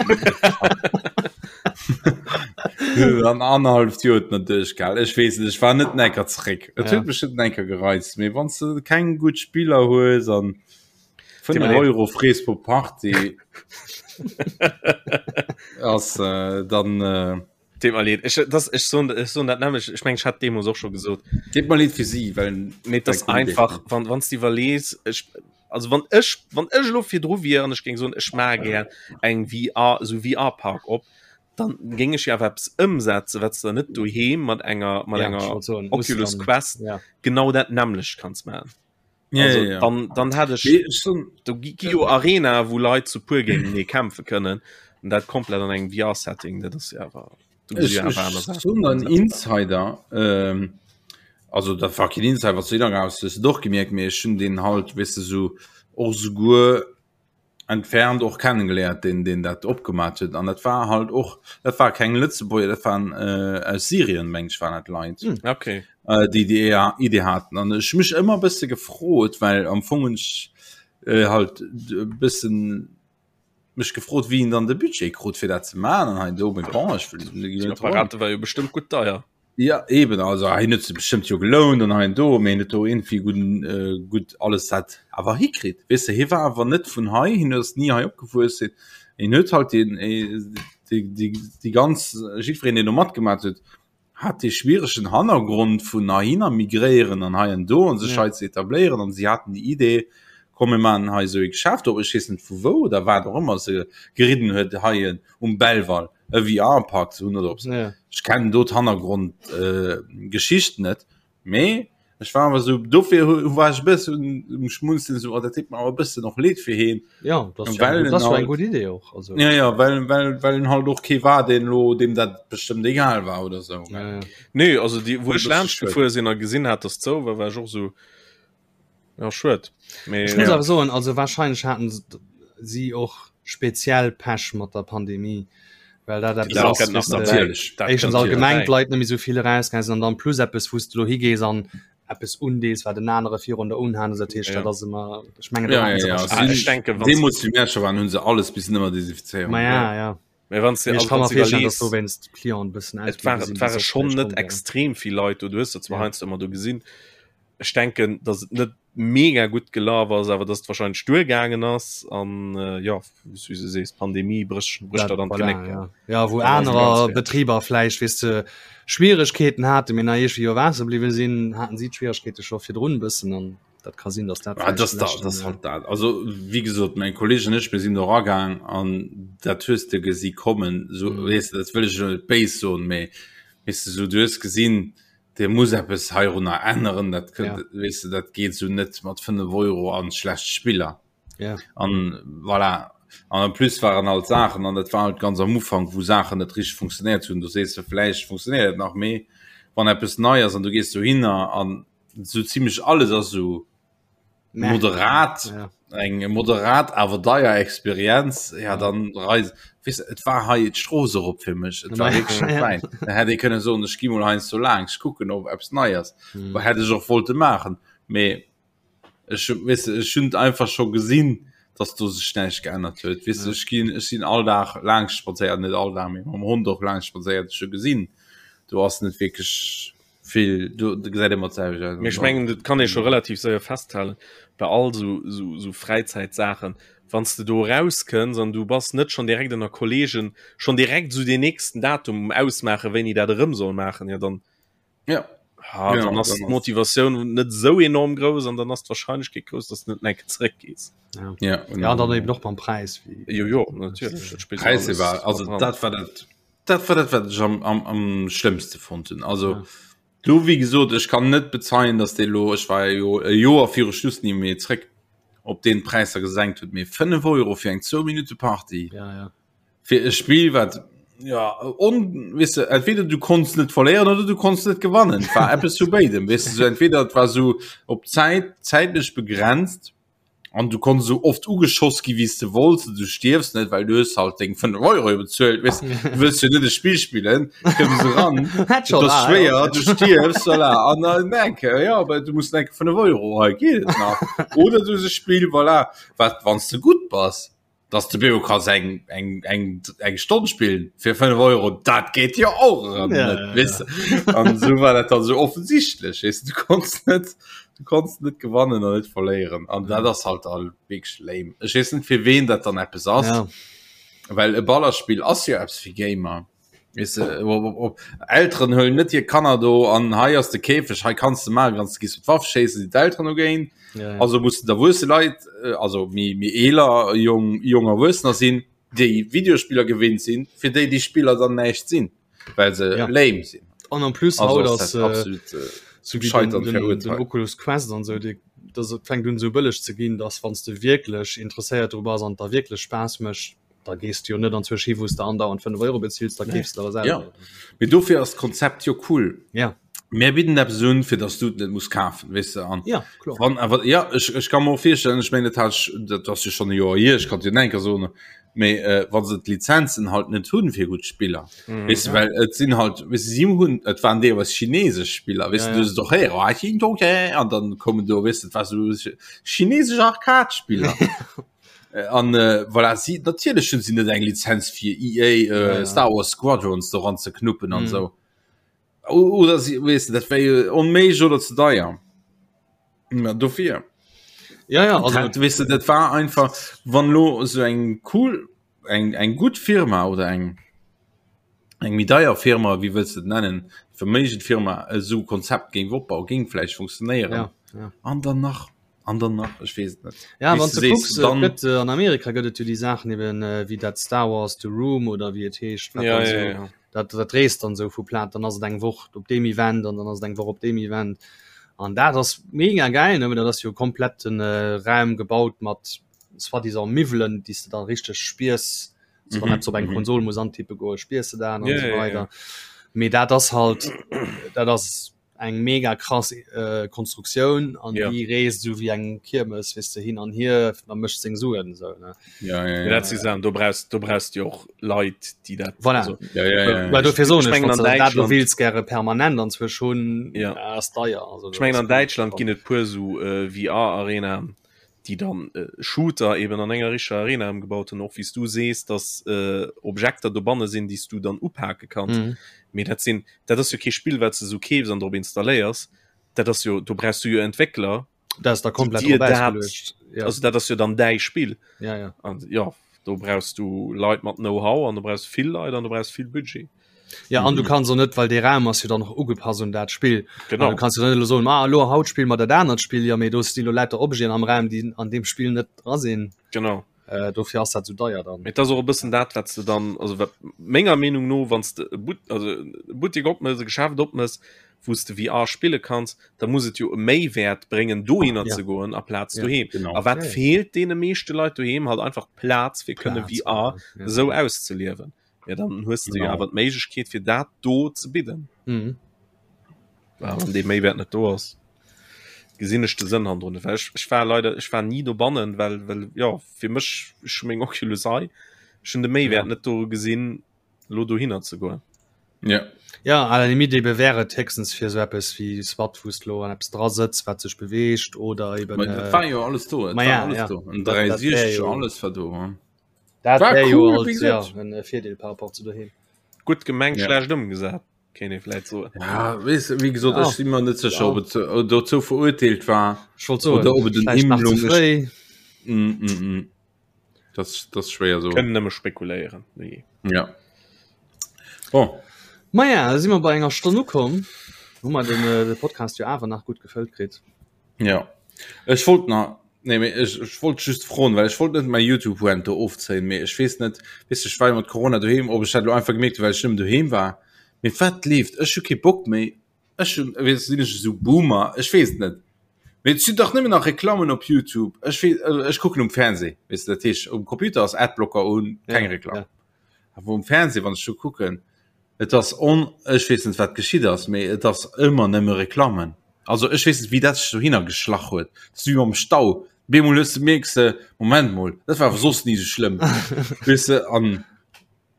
An anderthalb Joer huet net duerchgehal. Ech weess net, ech war net enker zeréck. Et Ja. huet mech net enker gereizt, mee wann s de keng gutt Spiller hues an 5 Deet mir leed. Euro frees pro Party ass äh, dann äh, Deet mer leed. Ech, das, ech soen, ech soen dat nämlech, ech meng, ech hat deemools och scho gesot. Deet mer leed fir si, well Mee das Well einfach, wann wann du iwwerlees, ech, also wann ech, wann ech elo virdru wier an ech géing soen, ech maache gär eng VR, esou VR-Park op, dann géing ech jo awer eppes ëmsetzen, wat s de net doheem mat enger, mat ja, ich enger wollt soen, muss Oculus dann, Quest ja. genau dat nämmlecht kanns maachen. Ja, Also, ja, ja. dann, dann hat ech Nee, ech soen, do gi gi jo Arena, wou Leit zu puer géintenee kämpfe kënnen an dat komplett an engem VR-Setting, dat ass jo awer do gesi Ech, jo awer ech aner Saachen soen déi en ëmsetzbar Insider, ähm, also dat war keen Insider, wat du raus hues du doch gemierkt, mee ech hunn deen halt, weess de, sou och souguer entfernt och kennengeléiert, deen deen dat opgemat huet an dat war halt och, dat war keng Lëtzebuerger, dat waren äh, aus Syrien, meng ech, waren dat Leit. Hm. Okay. äh, déi déi Idee haten an ech mech ëmmer bësse gefrot, well am Fong hunn ech äh, halt e bëssen mech gefrot, wéi en dann de Budget krut fir dat ze maachen an hei do, mee bon, ech wëll Déi Apparate war jo bestëmmt gutt deier. Ja eben, also hien huet se bestëmmt jo gelount an hei an do, mee hien huet do irgendwie gudden äh, gutt alles dat awer hikritt. Weess de, hie war awer net vun hei, hien ass ni hei opgewuess, hien hien huet halt den äh, déi déi déi ganz jiddwereen deen do matgemaat huet, hat dee schwieregen Hannergrond vun heihinner migréieren an hei an do an sech Ja. hei ze etabléieren an si haten déi Idee, komm mir maachen hei esou ee Geschäft op, ech weess net vu wou oder wat och ëmmer se geridden huet, hei en um Belval e VR-Park ze hunn oder op. Ja. Ech kennen do d'Hannergrond äh, Geschicht net, mee ech war awer sou, dofir hu war ech e bëssen um Schmunzeln, sou, oh, dat deet mer awer e bëssen och leed fir heen. Ja, das ist ja, Well eng, en das war eng halt, gutt Idee och. Also, ja, ja, well, well, well en halt och kee war, deen lo, deem dat bestëmmt egal war oder sou. ja, ja. Nee, also déi, wou War e ech bësse laanscht schued. gefuer sinn a gesinn hat, dass zou war, war ech och sou, ja, schued. Mee Ech muss ja. awer soen, also wahrscheinlech haten si och speziell Pech mat der Pandemie, well dat eppes Dat ass, kënnt nach weess de, derbäi. Natierlech, Dat éischtens kënnt allgemeng derbäi. d'Leit net méi sou vill erausgaange sinn an dann plus eppes, wou s de lo higees an eppes undees, wat en anere virun der unhat. Also dat heescht, Ja. dat ass ëmmer, ech mengen, do Ja, haten ja, se ja. wahrscheinlech Ah, Sinn, ech denken, wann deemools wéi mir scho waren, hunn se alles bis nëmmer desinfizéieren. Ma ja, ja. Mee wann du Mee ech also kann wann mer du virstellen, dass iwwerlees, dowéinst d'Clienten e bëssen et ausbliwwe war sinn, et déi ware soss schonn vläicht net komm wären. extrem vill Leit do, du hues der zwar Ja. heiansdo ëmmer do gesinn. Ech denken, datt et net. mega gutt gelaf ass, awer dass et wahrscheinlech duergaangen ass an jo, wéi s du sees, d'Pandemie brécht brécht der dann voilà, d'Genéck. ja. Ja, wou Dann ass et ganz anerer fäerdeg. Betriber vläicht, weess de, Schwieregkeeten haten, mee nach iergendwéi iwwer Waasser bliwwe sinn, haten si d'Schwieregkeete scho virdrun e bëssen an dat ka sinn, dass dat Ah, vläicht das, da, leschten, das halt dat. Also wie gesot, mein Kolleg an ech, mir sinn do ragaang an dat hues de gesi kommen. So, Mhm. weess de, dat wëll ech elo net béis soen, mee weess de, so, du hues gesinn, Dir muss eppes heirunner änneren, dat kënnt, Ja. weess de, dat geet sou net mat 5 Euro an schlecht Spiller. Ja. An voilà. An en plus waren halt Saachen, an dat war halt ganz am Ufank, wou Saachen net richteg funktionéiert hunn. Du sees de, vläicht funktionéiert et nach, mee wann eppes nei ass an du gees dohinner an sou zimmlech alles ass sou moderat ja. eng moderat awer deier Experienz ja dann reis wis et war hei d'Strooss erop fir mech et war wierklech net wäit da hätt ee kënne soen ech gi mol heiansdo laang ech kucken ob eppes nei ass mm. hätt ech och wollte maachen mee ech weess de ech hunn einfach scho gesinn dass do sech näischt geännert huet weess de ech ginn ech sinn all Dag laang spadséiert net all Dag mee mam Hond och laang spadséiert ech hu gesinn do ass net wierklech vill do gesäit ëmmer d'selwecht aus. Mee ech mengen dat kann ee scho relativ séier festhalen bei all sou sou sou Fräizäitsaachen, wann s de do erauskënns an du bass net schonn direkt ënner Kolleegen schonn direkt sou deen nächsten Datum um ausmaachen wéini dat erëm soll maachen, jo dann ja ha, ja, dann ass d'Motivatioun net sou enorm grouss an dann ass d'Warscheinlechkeet grouss, dass du net enke zeréckgees. Ja. Ja, ja, dann eben och beim Präis wéi Jo jo natierlech, dat spillt Präis alles war also mat dran. dat war dat Dat war dat wat ech am, am, am schlëmmste fonnt hunn. Also ja. du wie gesot, ech kann net bezeien, dass dee lo ech war jo e Joer viru Schluss ni méi zréck op den Präisser gesenkt huet, mee 5 Euro fir eng 2 Minute Party ja, ja. fir e Spiel wat ja on wis du, entweder du konns net verléieren oder du konns net gewannen war Apps zu béidem wis du, so entweder et war so op Zäit zäitlech begrenzt An du konns esou oft ugeschoss gi wéi s de wollts, du stierfs net, well du hues halt deng 5 Euro jo bezuelt, weess du wëlls jo net e Spill spillen, kënns eran, et ass schwéier, du stierfs, voilà, an dann enke, jo, awer du muss enke 5 Euro, hei geet et nach. Oder du hues e Spill, voilà, wat wann s de gutt bass, dass de Beo kanns eng eng eng eng Stonn spillen fir 5 Euro, dat geet jo och erëm Ja, net, ja, weess de. An esou war dat dann esou offensichtlech, weess de, du konns net du konns net gewannen an net verléieren an dat ass halt all wierklech lame. Ech weess net fir ween dat dann eppes ass, Ja. well e Ballerspill ass jo eppes fir Gamer. Weess de, op, op, op, Elteren huelen net hir Kanner do an hei ass de Käfeg, hei kanns de maachen, kanns gehst du d'Waff schéissen, sinn d'Elteren dogéint. Ja, ja. Also mussen d'erwuesse Leit, äh, also méi méi eeler jong jong Erwuessener sinn, déi Videospiller gewinnt sinn, fir déi déi Spiller dann näischt sinn, well se Ja. lame sinn. An en plus Also haut ass ass dat äh, absolut äh, so wie den, Scheitern den, den verurteilt. Oculus Quest an sou, déi, das et fänkt un sou bëlleg ze ginn, dass wann s de wierklech interesséiert dru bass an et der wierklech Spaass mécht, da gees du jo net anzwousch hi wou s de andauernd 5 Euro bezills, da keefs de der Ja. selwer. Mee dofir ass d'Konzept jo cool. Ja. Mir bidden eppes un, fir dass du et net muss kafen, weess de. An Ja, kloer. wann awer, ja, ech, ech ka mer och virstellen, ech mengen, dat hat ech, dat ass jo schonn e Joer hier, ech kann et jo nach eng Kéier soen, mee äh, wa se d'Lizenzen halt net hunn fir gutt Spiller, Mhm. weess de, well et sinn halt, weess de, si hunn, et waren deelweis chinesesch Spiller, weess Ja, de, du ja. hues et och héieren, ah, Ching Chong Cheng, an dann kommen do, weess de, et war sou chinesesch Arcade-Spiller. An äh, voilà, si natierlech hunn si net eng Lizenz fir EA äh, Ja, ja. Star Wars Squadrons doran ze knuppen an Mm. sou. O- Oder si weess de, dat wär jo onméiglech oder ze deier. Na dofir. Ja, ja, also Dat, weess de, dat war einfach wann lo sou eng cool eng eng gutt Firma oder eng eng méi deier Firma, wéi wëlls de et nennen, verméigend Firma esou Konzept géing opbauen, géing vläicht funktionéieren. Ja, ja. An dann nach an dann nach ech weess et net. Ja, Wéi wann s du du sees, kucks, et dann gëtt äh, an Amerika gëtt et jo déi Saachen eben äh, wéi dat Star Wars The Room oder wéi et heescht, wat Ja, dann ja, so, ja. dat, dat reest dann sou vu Plaz, dann ass et eng Woch op deem Event an dann ass et eng Woch op deem Event. An dat ass mega geil, ne? Dat ass jo komplett den äh, Raum gebaut mat soi-disant Miwwelen, déi s de dann richteg spiers, so wann Mhm, eppes op eng mhm. Konsol muss antippe goen, spiers de dat an Ja, so ja, ja. weider. Mee dat ass halt, dat ass eng mega krass äh, Konstruktioun an Ja. déi reest sou wéi eng Kiermes, weess de, hin an hier, da mécht seng Suen sou, ne. Ja, ja, Ja, ja. dat si Saachen, do brauchst, do brauchst du jo och Leit, déi dat. Voilà. Also, Ja, ja, ja, Well ja. dofir soen Ech ech, mengen wann an du dat lo Däitschland- wills gäre permanent anzwousch hunn, Ja. ass deier. Also, Ech mengen an Däitschland ginn et puer sou äh, VR-Arenaen, déi dann äh, Shooter eben an enger richteger Arena ëmgebaut hunn, och wéi s du sees, dass äh, Objekter dobanne sinn, déi s du dann upake kanns. Mhm. Mee dat sinn, dat ass jo kee Spill, wat s de sou keefs an drop installéiers. Dat ass jo, do brauchs du jo Entwéckler. Dat ass da komplett dir drop dat, ausgeluecht. Ja. also dat ass jo dann däi Spill. Ja, ja. An ja, do brauchst du Leit mat Know-how an du brauchst vill Leit an du brauchst vill Budget. Ja, an du kanns och net, well dee Raum ass jo dann och ugepasst un dat Spill. Genau. An du kanns jo net elo soen, ah, elo haut spille mer dat anert Spill, jo, mee do sti lo lauter Objeten am Raum, déi an deem Spill net dra sinn. Genau. Äh, dofir ass dat sou deier dann. Mee et ass och e bëssen dat, wat s de dann, also wat menger Meenung no, wann s de e But, also e Buttek opmëss, e Geschäft opmëss, wou s de VR spille kanns, da muss et jo e Méiwäert bréngen, dohinner Ja. ze goen aplaz Ja, doheem. genau. A wat Ja, ja. feelt deene meeschte Leit doheem? Halt einfach d'Plaz, fir kënne Plaz, VR ja. esou auszeliewen. Ja, dann hues de jo Genau. awer d'Méiglechkeet, fir dat do ze bidden. Mhm. Ja, wann dee Méiwäert net do ass, gesinn ech de Sënn hannendrun net. Well ech, ech war leider, ech war ni dobannen, well, well ja, fir mech, ech hu meng Oculus hei, ech hunn de Méiwäert Ja. net do gesinn, lo dohinner ze goen. Ja. Ja, à la limite ebe wär et héchstens fir esou eppes wéi SWAT, wou s de lo an eppes dra sëtz, wat sech beweegt oder eben. Ma dat war jo alles do, et Ma war ja, alles ja. do. En Dat- dat wär 360, jo- alles war do. Hm. Dat War wär jo cool, halt, wéi ja, gesot. en Virdeel par rapport zu doheem. Gutt gemengt, Ja. schlecht ëmgesat, kéint ee vläit soen. Ja, weess, wéi gesot, Ja. ech si mer net sécher, Ja. ob et äh, dozou verurteelt war. Ech wollt soen, Oder ob et en vläicht nach ze Imlung ist. fréi. Mm, mm, mm. Das, das ist schwéier so. Kënnen nëmme spekuléieren. Nee. Ja. Bon. Maja, da si mer bei enger Stonn ukomm. Hu mer den, äh, de Podcast jo awer nach gutt gefëllt kritt. Ja. Ech wollt nach nee, mee ech, ech wollt just froen, well ech wollt net mäi YouTube Rant do ofzéien, mee ech weess net, weess du, ech war jo mat Corona doheem, ob ech dat lo einfach gemierkt hu, well ech nëmmen doheem war. Mee wat leeft? Ech hu kee Bock méi. Ech hunn, weess, sinn ech esou Boomer? Ech weess et net. Mee et sinn dach nëmmen nach Reklammen op YouTube. Ech weess, also ech kucken um Fernseh, weess du, dat heescht um Computer ass Adblocker un, keng Ja, Reklamm. ja. Awer um Fernseh, wann ech do kucken, et ass on, ech weess net wat geschitt ass, mee et ass ëmmer nëmme Reklammen. Also ech weess net wéi dat sech dohinner geschlach huet. Dat ass wéi mam Stau, bemol hues de, mierks de, Moment mol, dat war awer soss ni esou schlëmm, weess de, an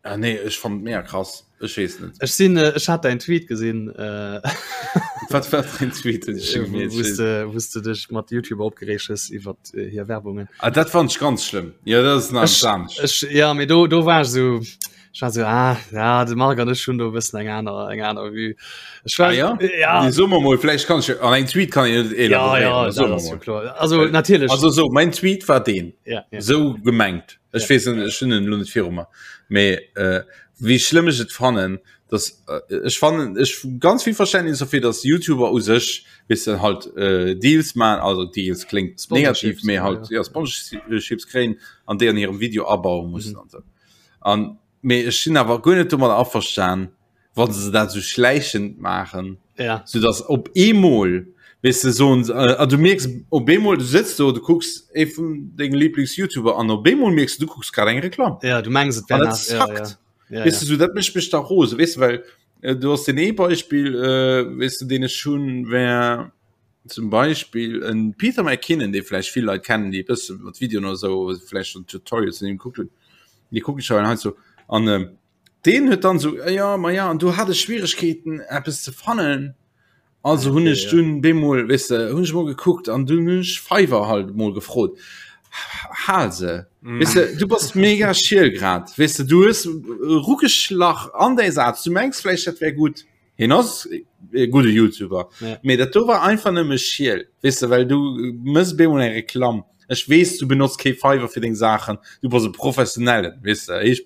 Ah nee, ech fand et mega krass. Ech weess net. Ech sinn, äh, ech hat dein Tweet gesinn, äh, Wat war dein Tweet, den ech mir wou s de, wou s de dech mat YouTuber opgereegt hues iwwer äh, hir Werbungen. Ah, dat fand ech ganz schlëmm. Ja, dat ass nach Ech, anescht. ech, ja, mee do, do war ech sou, ech war sou, ah, ja, de Marc an ech hunn do e bëssen eng aner, eng aner Vue. Ech war, Ah, ja? ja, Nee, so mer mol, vläicht kann ech, an engem Tweet kann een net ja, elaborieren, ja, so dat mer ass jo mol. kloer. Also, natierlech, Also so, mein Tweet war deen. ja, ja. Sou gemengt. Ech weess net, ech hunn en elo net viru mer. Mee äh, wéi schlëmm ech et fannen, dass äh, ech fannen ech ganz vill Verständnis dofir, dass YouTuber u sech weess de halt äh, Deals man, also Deals kléngt negativ, Sponsorships, mee ja, halt ja. ja Sponsorships kréien an déi an hirem Video abaue mussen Mhm. an sou. An mee ech sinn awer guer net domadder averstan, wann se dat sou schläichend maachen, ja. sou dass op eemol weess de soen se äh, du mierks op eemol du sëtz do du kucks ee vun denge Lieblings-YouTuber an op eemol mierks du du kucks grad eng Reklamm. Ja, du mengs et wär An dat nach, ja, zackt. ja. Ja, Weess ja. du sou dat mécht mech da rose weess du well äh, du hast den ee Beispiel äh, weess du deen ech hunn wär zum Beispiel en Peter McKinnon dee vläicht vill Leit kennen déi e bësse mat Videoen oder sou vläicht schon Tutorials vun him gekuckt hunn déi kucken ech hei sou an ähm, Deen huet dann sou, jo, ma ja, an do hat ech Schwieregkeeten eppes ze fannen. Also hunn ech dunn bemol, weess de, hunn ech mol gekuckt an dunn hunn ech Fiverr halt mol gefrot. Hal se, weess de, du bass mega schiel grad, weess de, du hues erugeschlach an däi Saz, du mengs vläicht dat wär gutt, hien ass e gudde YouTuber, mee dat do war einfach nëmme schiel, weess de, well du mëss bemol eng Reklamm. Ech weess, du benotz kee Fiverr fir deng Saachen, du bass e Professionellen, weess de, ech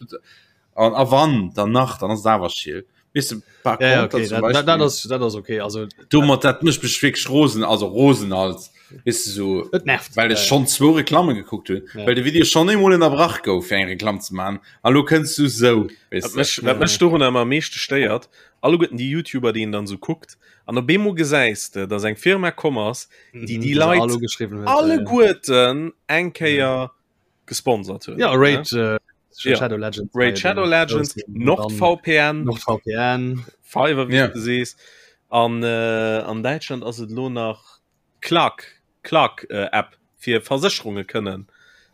An a wann dann nach, dann ass et awer schiel. Weess de, par Ja, ja, contre okay, zum dat, dat, dat Beispiel, ass, dat ass okay. Also, domat dat mécht mech wierklech rosen, also rosen als, weess de, so, et nervt. well Ja, ech ja. schonn zwou Reklamme gekuckt hunn, Ja. well de Video schonn eemol ënnerbrach gouf fir eng Reklamm ze maachen, a lo kënns du sou, weess Wat de. mech, wat mech dorun ëmmer am meeschte stéiert, alleguerten déi YouTuber, déi een dann esou kuckt, an op eemol gesäis de, dass eng Firma komm ass, déi Mhm, déi déi se Leit all ugeschriwwen huet. Ja, ja. alleguerten eng Kéier gesponsert hunn. Ja, Raid äh, Ja. Shadow Legends. Raid Shadow Legends, NordVPN, NordVPN. Fiverr, wéi Ja. du sees. An, äh, an Däitschland ass et lo nach Clark, Clark äh, App fir Versécherunge kënnen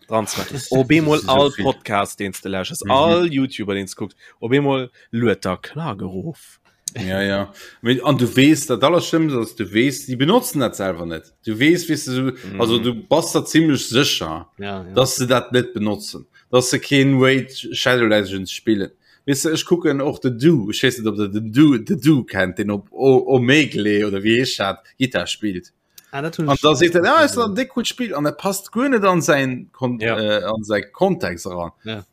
dran ze maachen. Op eemol Das ist so all viel. Podcast, deen s de lauschters, Mhm. all YouTuber, deen s kucks, op eemol luet der Clark erof. Ja, ja. Mee, an du weess, dat Allerschlimmst ass, du weess, déi benotzen dat selwer net. Du weess, weess du, so, also du bass der zimmlech sécher, Ja, ja. dass se dat net benotzen, dass se keen Raid Shadow Legends spillen. Weess de, ech kucken och den Du, ech weess net, ob der den Du, The Du kennt, deen op O- Omegle oder wéi heescht dat, Gittar spillt. Ah, dat hunn An da seet en, ah, ist en déck gutt Spill an dat passt guer net an säin Kon Ja. äh, an säi Kontext eran. Ja.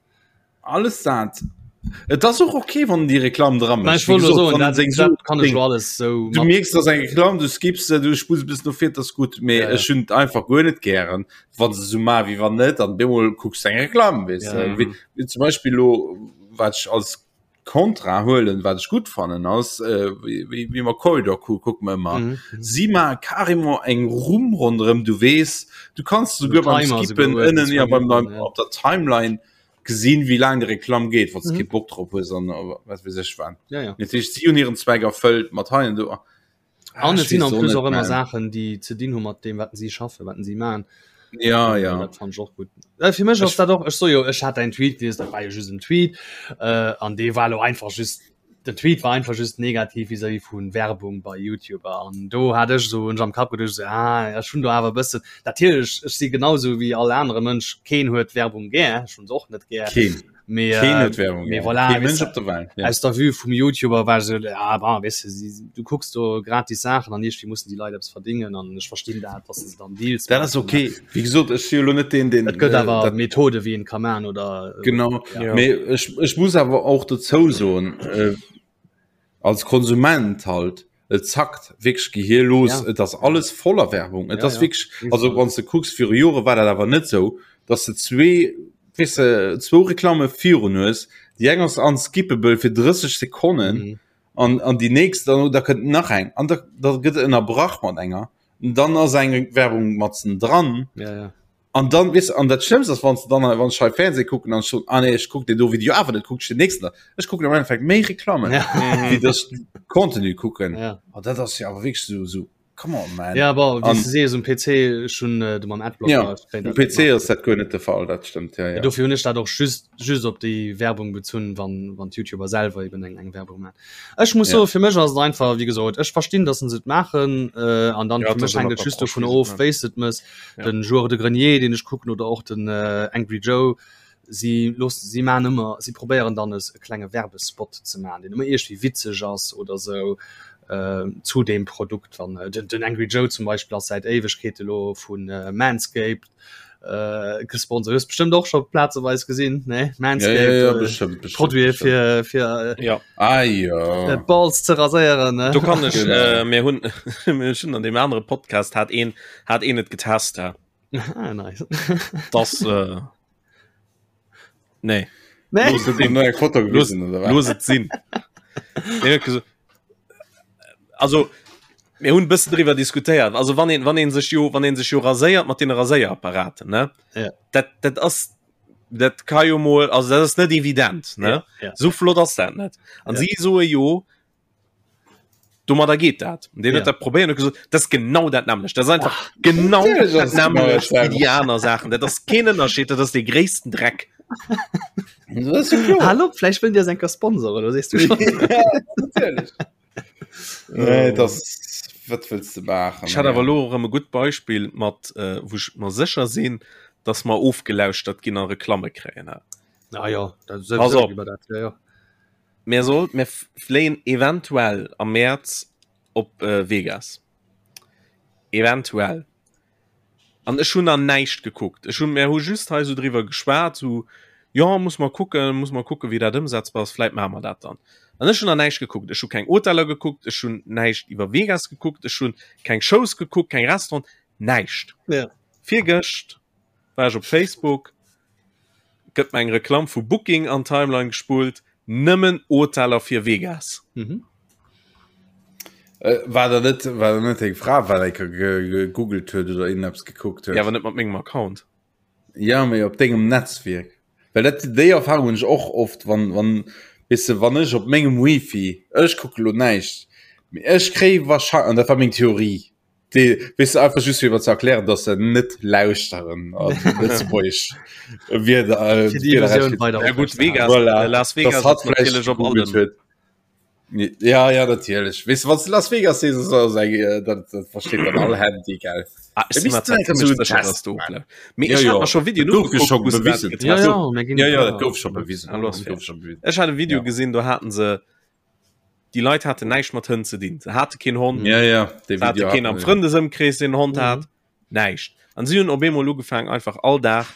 Alles dat. Et ass och okay, wann en déi Reklamm dra Mä mécht. ech Wéi wollt elo gesot, soen, wann en dat, seng dat Suen kann ech verdéngt. elo alles sou Du mat. mierks, dass eng Reklamm, du skips se, du spulls e bëssen no vir, dat ass gutt, mee Ja, ja. ech hunn et einfach guer net gären, wann se sou maachen, wéi wann net, an bemol kucks de eng Reklamm, weess Ja, de. ja. Wéi, wéi zum Beispill elo, wat ech als Kontra huelen, wat ech gutt fannen ass, äh, wéi, wéi, wéi mer Corridor Crew kucke mer ëmmer. Mhm. Si maache carrément eng Rumm ronderëm, du weess, du kanns So souguer beim Timer Skippen souguer, ënnen, ja, beim, beim, ja. op der Timeline gesinn, wéi laang déi Reklamm geet, wann s de Mhm. kee Bock drop hues an äh, wat weess ech wat. Ja, ja. Dat heescht, si hunn hiren Zweck erfëllt mat hei an do. Ah, An ech et sinn weess en och plus net, och ëmmer man. Saachen, déi ze dinn hu mat deem, wat si schaffen, wat si maachen. Ja, Äh, ja. Dat fand ech och gutt. Äh, fir mech ass Ech, dat och, ech so jo, ech hat däin Tweet gelies, dat war jo just en Tweet, äh, an dee war lo einfach just, den Tweet war einfach just negativ vis-à-vis vu Werbung bei YouTuber. An do hat ech so hunn ech am Kapp geduecht, so, ah, ech hunn do awer e bëssen, natierlech, ech si genau sou wéi all anere Mënsch, keen huet Werbung gär, ech hunn se och net gär. keen. Mee, Keen äh, huet Werbung mee gär. voilà, Kee weess Mënsch de, op der Welt, ja. aus der Vue vum YouTuber war ech esou, ah, bon, weess de, si, du kucks do gratis Saachen an iergendwéi mussen déi Leit eppes verdéngen an ech verstinn dat, dass se dann Deals Dat ass maachen. okay. Wéi gesot, ech si jo elo net deen, deen Et gëtt äh, awer dat Methode wéi een ka maachen oder äh, genau. ja. Ja. Mee ech, ech muss awer och dozou soen, äh, als Konsument halt, et zackt wierklech Gehir los. Ja. Et ass alles voller Werbung. Et Ja, ass ja. wierklech, also Iwwerall. wann s de kucks, viru Jore war dat awer net sou, dass de zwee, weess de, zwou Reklamme virun hues. Déi eng ass unskippable fir 30 Sekonnen Mhm. an, an déi nächst, dann, da kënnt nach eng. An da, da gëtt ënnerbrach mat enger. Dann ass eng Werbung matzen dran. Ja, ja. An dann weess an dat Schlëmmst ass, wann s de dann wann ech hei Fernseh kucken an ech soen, ah nee, ech kuck deen do Video awer net, kuck ech den nächsten da. Ech kucken am Endeffekt méi Reklammen, Ja. wéi dass ech Contenu kucken. Ja. An dat ass jo awer wierklech esou, esou, come on man. Ja, bon, wéi An s de sees, um PC, ech hunn de mam Adblocker, ja, ech kréien um dat net PC mat. ass dat guer net de Fall, dat stëmmt, ja, ja. Dofir hunn ech dat och just, just op déi Werbung bezunn, wann, wann d'Youtuber selwer eben eng, eng Werbung maachen. Ech muss Ja. soen, fir mech ass et einfach, wéi gesot, ech verstinn, dass se et maachen, äh, an dann Ja, fir et mech ass ëmmer hänkt et just d'Approche, dovun wéi se et of, maachen. wéi s de et mëss. Ja. Den Joueur de Grenier, deen ech kucken, oder och den äh, Angry Joe, si loossen, si maachen ëmmer, si probéieren dann es e klenge Werbespot ze maachen, deen ëmmer iergendwéi witzeg ass oder sou äh, zu deem Produkt. Wann äh, den, den Angry Joe zum Beispill ass säit Éiwegkeete lo vun äh, Manscaped äh, gesponsert. Hues bestëmmt och scho plazeweis gesinn, ne? Manscaped, Ja, ja, ja, äh, bestimmt, bestimmt, Produite bestimmt. fir fir äh, Ja. Ah, ja. äh, Balls ze raséieren, ne? Do kann ech Genau. äh, mir hunn mir hunn an dem anere Podcast hat een hat een et getest ja. ah, nice. Das äh, nee. Nee. Looss et sinn. Eng Foto Looss, gewisen, oder wat? looss et sinn. Nee, huet gesot, also mir hunn e bëssen driwwer diskutéiert. Also wann een wann een sech jo wann een sech jo raséiert mat den Raséierapparaten, ne? Ja. Dat dat ass dat ka jo mol also dat ass net evident, ne? Ja, ja. Sou flott ass dat net. An Ja. si soe jo domadder geet dat. An deen Ja. huet dat probéiert und huet gesot, dat ass genau dat nämmlecht. Dat ass einfach genau Natierlech dat ass es genau nämmlecht dat wéi déi aner Saachen. Dat ass keen Ënnerscheed, dat ass dee gréissten Dreck. Dat ass jo kloer. Hallo, vläicht wëllen déi eis eng Kéier sponsoren, oder sees du schon? Ja, natierlech. Nee, das, wat wëlls de maachen? Ech hat awer elo erëm e gutt Beispill mat äh, wou ech mer sécher sinn, dass mer ofgelauschtert ginn a Reklamme kréien. Ah ja, dat Pass op. iwwer dat, ja, ja. Mir soll mir fléien eventuell am Mäerz op äh, Vegas. Eventuell. An ech hunn nach näischt gekuckt. Ech hunn, mir hu just hei sou driwwer geschwat, sou, jo, muss mer kucken, muss mer kucken, wéi dat ëmsetzbar ass, vläit maache mer dat dann. An ech hunn nach näischt gekuckt. Ech hu keng Hoteller gekuckt, ech hunn näischt iwwer Vegas gekuckt, ech hunn keng Shows gekuckt, keng Restauranten, näischt. Ja. Virgëscht war ech op Facebook, gëtt mer eng Reklamm vu Booking an d'Timeline gespullt, nëmmen Hoteller fir Vegas. Mhm. Äh, war da net war da net eng Fra wat eng gegoogelt huet oder irgendeppes gekuckt huet? Ja, awer net mat mengem Account. Ja, mee op dengem Netzwierk. Well dat déi Erfahrung hunn ech och oft, wann wann weess de, wann ech op mengem Wifi, ech kucke lo näischt, mee ech kréie wahrscheinlech, an dat war meng Theorie, Déi, weess de, einfach just fir mer ze erklären, dass se net lauschteren an Lëtzebuergesch Wierder, äh, Fir déi Wierder Illusioun weider Ja gutt, Vegas, Voilà. äh, Las Vegas Dass hatt ass vläicht natierlech op gegoogelt allem. huet. Ja, ja, natierlech. Weess de, wann s de Las Vegas sees, ass alles eng, äh, dat, dat versteet dann all Handy, gell? Ah, ech Da si mir misst zwar du zimmlech so einen sécher, Test dass du machen. ofläuft. Mee Ja, ech hat ja. mer scho Videoen Dat gouf jo ugeguckt, scho wou se dat bewisen. getest Ja, hunn. ja, mir ginn Ja, ja, ja. dat gouf scho bewisen. Ah, lo ass Dat fair. gouf scho bewisen. Ech hat e Video Ja. gesinn, do haten se. Déi Leit haten näischt mat Hënn ze dinn. Se hate keen Hond, ja, ja, se hate keen am Frëndesëmkrees, deen en Hond hat, mhm. näischt. An si hunn op eemol ugefaangen, einfach all Dag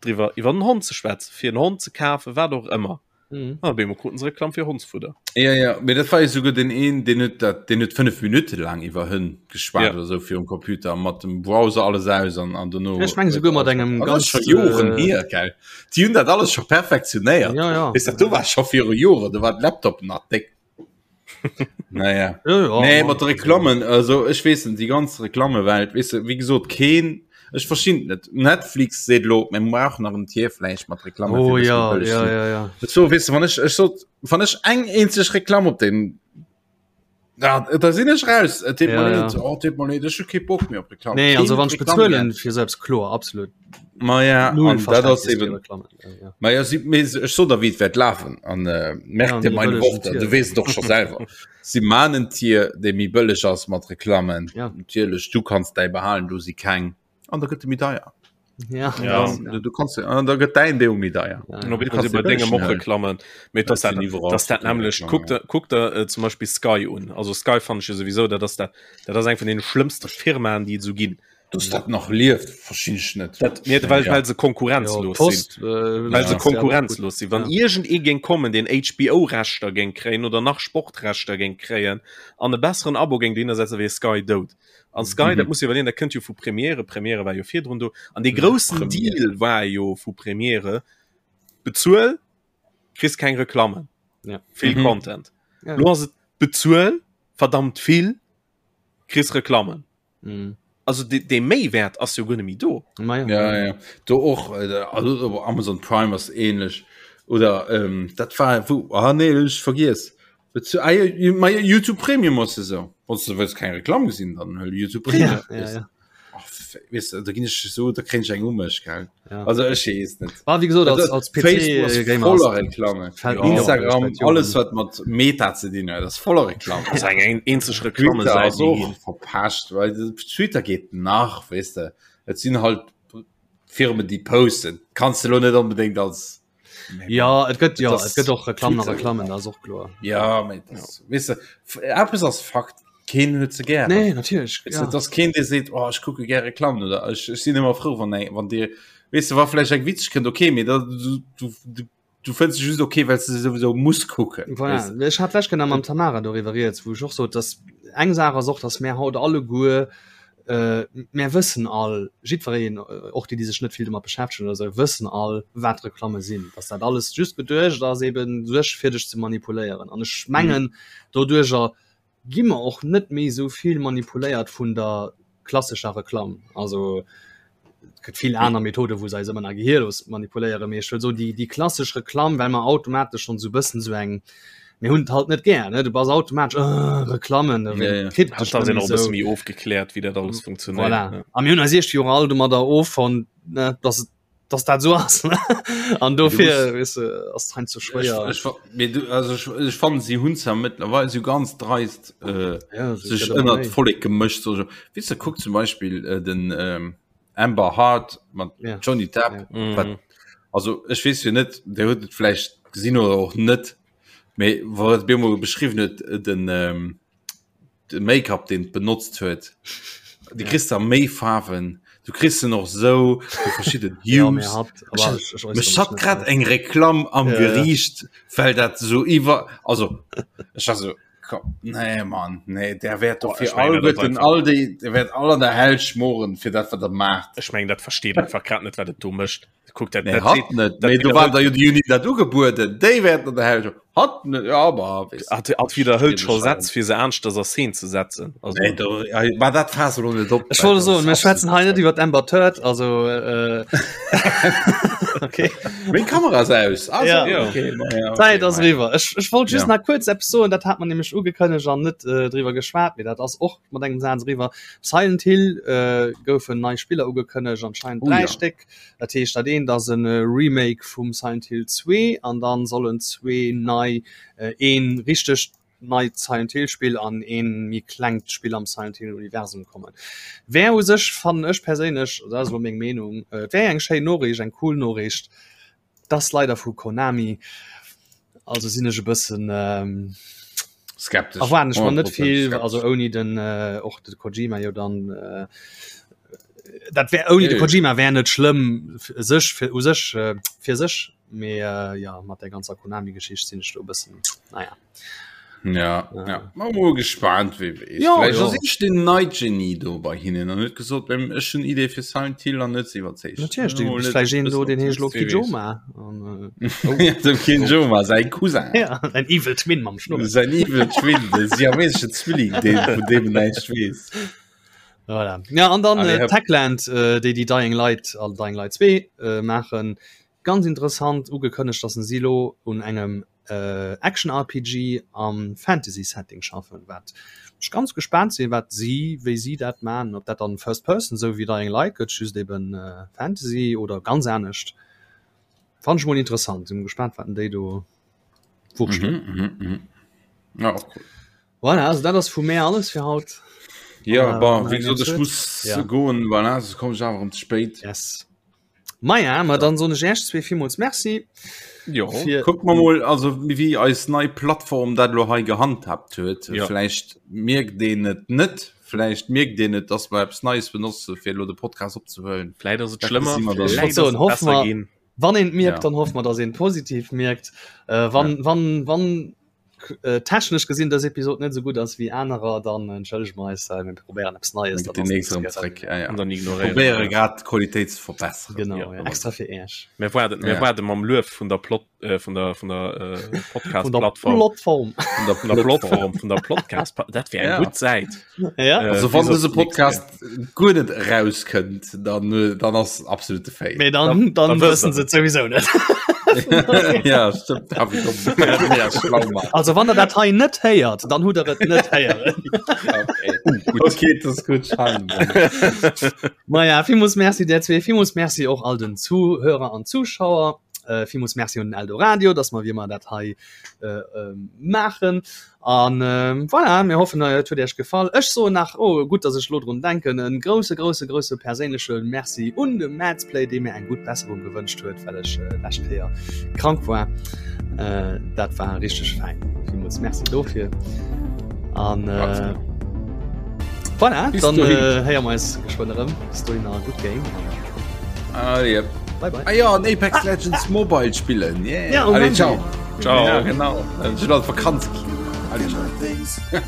driwwer iwwer den Hond ze schwätzen, fir en Hond ze kafen, wat och ëmmer. Mhm. An op eemol kruten se Reklamm fir Hondsfudder. Ja, ja, mee dat war jo souguer den een, deen huet dat, deen huet 5 Minutte laang iwwer Hënn geschwat Ja. oder sou virum Computer mat dem Browser alles aus an, an dono. Ech meng souguer mat engem An dat ass ganz, scho Joren äh, hier, gell? Déi hunn dat alles scho perfektionéiert. Ja, ja. Weess dat, do war scho viru Joren, do war de Laptop nach déck. Naja. Ja, ja, Nee, ma- mat de Reklammen, also ech weess net, déi ganz Reklammewelt, weess de, wéi gesot, keen, ech verstinn et net. Netflix seet elo, mir brauchen nach en Tier vläicht mat Reklamme Oh fir dass ja, méi bëlleg ja, sinn. ja, ja. So, weess de, wann ech, ech sot, wann ech eng eenzeg Reklamm op den, ja, da sinn ech raus. Et deet Ja, mer ja. leed, oh, et deet mer leed, ech hu kee Bock méi op Reklamm. Nee, Keen also wann ech Reklamm bezuelen gär. fir selbst kloer, absolut. Ma ja, Null an dat ass Verständnis fir eben, Reklammen. Ja, ja. Ma ja, si, mee ech so der wéi et wäert lafen an äh, merk Ja, dir méi meine bëllegen Worte, Tier. du weess et och scho selwer. Si man en Tier, dee méi bëlleg ass mat Reklammen. Ja. Natierlech, du kanns däi behalen, do si keng an da gëtt e méi deier. Ja, Ja. das, Du, du kanns an da gëtt däin dee méi deier. ja. Und ob Du ich kannst bei dir dengem bëllegen och huelen. Reklammen. Mee Dat dass dat, sinn iwwerall dass dat verschidden nämlech Reklammen, kuck der, kuck der äh, zum Beispill Sky un. Also Sky fand ech jo sowieso, dat ass dat, dat ass eng vun den schlëmmste Firmaen, déi et sou ginn. Dass dat nach lieft, verstinn ech net. Dat, nee, well, Ja. well se Ja, konkurrenzlos sinn. Post, äh, Well se ja. konkurrenzlos sinn. Wann Ja. iergend ee géing kommen, deen HBO-Rechter géing kréien oder nach Sportrechter géing kréien an e besseren Abo géing dohinner setzen, wier Sky dout. An Sky, Mhm. dat muss iwwerleeën, dat kënnt jo vu Premiere. Premiere war jo virdrun do. An dee groussen Premiere. Deal war jo vu Premiere, bezuel, kriss keng Reklammen. Ja. Vill Mhm. Content. Ja. Lo ass et bezuel, verdammt vill, kriss Reklammen. Mhm. Also de, de Méiwäert ass jo guer net méi do. Ma ja. Ja, ja. Do och äh, also Amazon Prime ass ähnlech oder ähm, dat war wo ah, nee, ech vergiess. Bezu ah, ja, ma ja, YouTube Premium ass esou. Wann du wëlls keng Reklamm gesinn, dann hëll YouTube Premium. Ja, ja, ja. Ach, weißt du, da ginn ech so, da kréien ech eng um mech, gell? Ja. Also ech weess net. War wie gesot als, als PC Facebook ass äh, Gamer voller ass- Reklamme. fällt mir op, Instagram, ech seit alles Joren. wat mat Meta ze dinn huet, ass voller Reklamm. Das ist eng eng eenzeg Twitter Reklamme ass och verpascht, weil Twitter geht nach, weißt du. Et sinn halt Firmen, déi posten. Kannst du lo net unbedingt als Ja, et gëtt ja, Das- et gëtt och Reklamm nach Twitter. Reklammen, dat ass och kloer. Ja, mee das, weißt du, f- eppes ass Fakt, keen huet se gär. Nee, natierlech. Weißt du, Ja. dass keen dee seet, oh, ech kucke gär Reklammen oder ech, ech sinn ëmmer frou, wann eng, wann dir, weißt du, wa vläicht eng witzeg kënnt, okay, mee da, du, du, du, du fënns se just okay, well s du se souwisou muss kucken. Voilà. Weißt du? Ech hat lech genau mam Tamara doriwwer rieds, wou ech och sot, dass eng Saach ass och, dass mär haut alleguer äh, mär wëssen all, jiddwereen, och déi, déi sech net vill domat beschäftegen oder esou, wëssen all, wat Reklamme sinn, dass dat alles just geduecht ass, eben sech fir dech ze manipuléieren. An ech mengen, doduercher gi mer och net méi esou vill manipuléiert vun der klassescher Reklamm. Also et gëtt vill aner Methoden, wou se eis ëmmer nach gehirlos manipuléieren, mee ech wëll soen, déi, déi klassesch Reklamm, well mer automatesch schonn esou e bëssen esou eng, mir hunn et halt net gär, ne, du bass automatesch, äh, Reklammen, da Ja, ja. kritt Hat dech da net sinn méi och e bësse esou. méi ofgekläert, wéi dat alles funktionéiert. Voilà. Ja. A mir hunn eis iergendwéi och all domadder offonnt, ne, dass et dass dat esou ass, ne? An dofir, weess de, ass et heiansdo Ech, schwéier. ech, mee du, also ech, ech fannen, si hunn zwar mëttlerweil sou ganz dreist äh, Ja, es sech gëtt ëmmer ënnert méi. d'Vollek gemëscht. So, weess de, kuck zum Beispill äh, den ähm, Amber Heard mat Ja. Johnny Depp. Ja. Mhm. Wat, also ech weess jo net, der huet et vläicht gesinn oder och net, mee wou et bemol beschriwwen huet, äh, den ähm, de Make-up deen benotzt huet du kriss da méi Faarwen du kriss se och sou du verschidden Ja, Hues mir hat, aber ich, ich äußere mech mich hat net grad dazu. eng Reklamm am Ja, ja. Geriicht well dat so iwwer also ech war so komm, nee Mann nee der wäert doch Boah, fir ech mengen, dat ass alleguerten einfach- all déi der wäert all an der Hell schmoren fir dat wat der maacht Ech mengen dat versteet einfach grad net wat et do mécht. Kuck dat, Nee, dat hat seet- net dat mee do war widderhëlt- da jo déi Uni dat ugebueden déi wäerten an der Hell schmoren hat net ja aber weess hat, hat widderhëlt scho Schwierig, Sätz fir se aneschters a Szene ze setzen. Also, Nee, do, ja, war dat fass lo net op Ech wollte soen, mir schwätzen hei net iwwer d'Amber Turd, also äh, okay. Meng Kamera ass aus. Also, Ja. Ja. okay, ma ja, okay, Zäit ass ma ja. eriwwer. Ech, ech wollt just Ja. nach kuerz eppes soen, dat hat man nämlech ugekënnegt an net äh, driwwer geschwat, mee dat ass och mat engem Saz eriwwer. Silent Hill äh, goufen nei Spiller ugekënnegt, anscheinend Oh dräi ja. Stéck. Dat heescht, dat eent ass e Remake vum Silent Hill 2 an dann sollen zwee nei, äh, een richtegt neit Silent Hill Spill an een méi klengt Spill am Silent Hill Universum kommen. Wär u sech, fannen ech perséinlech, dat ass elo meng Meenung, et wär eng schéin Noriicht, eng cool Noriicht. 't ass leider vu Konami, also sinn ech e bëssen. Skeptesch. Erwaarden ech mer net vill, also ouni den äh, och de Kojima jo dann äh, dat wär ouni de Kojima wär net schlëmm sech fir u sech äh, fir sech mee äh, ja mat der ganzer Konami-Geschicht sinn ech do e bëssen naja. Ja, ja. ja. Mal mol gespannt wie wees. Ja, Vielleicht ja. ass ich den nei Genie do bei hinnen an huet gesot beim ech hun Idee fir Silent Hill an net iwwerzeegt. Natierlech, du bist vläicht een do, deen heescht lo Kijoma. An, äh, oh. Dem Kijoma säin Cousin. Ja, ein Evil Twin mam Schnurr. Säin Evil Twin, de siamesesche Zwilling, deen vun deem näischt weess. Voilà. Ja, an dann Allez, äh, hopp. Techland, äh, déi déi Dying Light an Dying Light 2 äh, maachen. Ganz interessant ugekënnegt, dass si lo un engem äh, Action-RPG am Fantasy-Setting schaffen, wat ech ganz gespaant sinn, wat si, wéi si dat man, ob dat dann First Person sou wéi Dying Light gëtt, just eben äh, Fantasy oder ganz anescht. Fand ech mol interessant, sinn gespaant, wat déi do wurstelen. Mhm, mhm, mhm. Ja, och cool. Voilà, also dat ass vu mär alles fir haut. Ja, Äh, bon, nach wéi eng gesot, ech Episode? muss Ja. goen, voilà, soss kommen ech awer erëm ze spéit. Yes. Maja, ma dann soen ech Iech zwee villmools Merci. Jo. Fir Kucke mer mol, also wéi eis nei Plattform dat elo hei gehandhabt huet. Ja. Vläicht mierkt een et net, vläicht mierkt een et, dass mer eppes Neies benotze fir elo de Podcast opzehuelen. Vläicht ass et Dat schlëmmer, gesi mer dann. vläicht Ech wollt soen, ass et hoffe besser mer- ginn. Wann een et mierkt, Ja. dann hoffe mer, dass een et positiv mierkt. Äh, wann, ja. wann, wann äh, technesch gesinn dës Episod net sou gutt ass wéi anerer, dann entschëllege mer eis, äh, mir probéieren eppes Neies. Dann gëtt déi nächst erëm zréck. Ja, ja. An dann ignoréieren Probéiere wir. grad d'Qualitéit ze verbesseren. Genau, Ja, ja, extra fir Iech. Mir waarden, mir Ja. waarde mam Luef vun der Plot, äh, vun der, vun der äh, Vun der Podcast-Plattform. Plattform. Vun der, vun der Plattform, vun der Podcast. Dat wär eng Ja. gutt Säit. Ja. Äh, Also wann bis op dëse d'nächst Podcast guer net erauskënnt, dann, äh, dann ass absolute Fail. Mee dann, dann, dann wëssen wëssen se et souwisou net. ja, stimmt. Darf ich doch ja, schlau machen. Also wann der dat hei net héiert, dann hutt der et net héieren. Okay. Uh, okay, das ist gut. Maja, villmools Merci der zwee, villmools Merci och all den Zuhörer an Zuschauer. Äh, villmools Merci un den Eldoradio, dass mer wéi ëmmer dat hei äh, äh, maachen. An äh, voilà, mir hoffen et huet Iech gefall. Ech soen nach, oh gutt, dass ech lo drun denken, en grousse grousse grousse perséinleche Merci un de Madsplay, dee mir eng gutt Besserung gewënscht huet, well ech äh, lescht Kéier krank war. Äh, dat war richteg fein. Villmools Merci dofir. An äh, voilà, Bis dann dohin. äh, héiere mer eis geschwënn erëm. Bis dohin a gutt Game. Ah, yep. Bye bye. Ah ja, an Apex Legends Mobile spillen. Yeah. Ja, um Allez, Handy. ciao. Ciao. Ja, genau. Ech hunn alt Vakanz. Allez, ciao.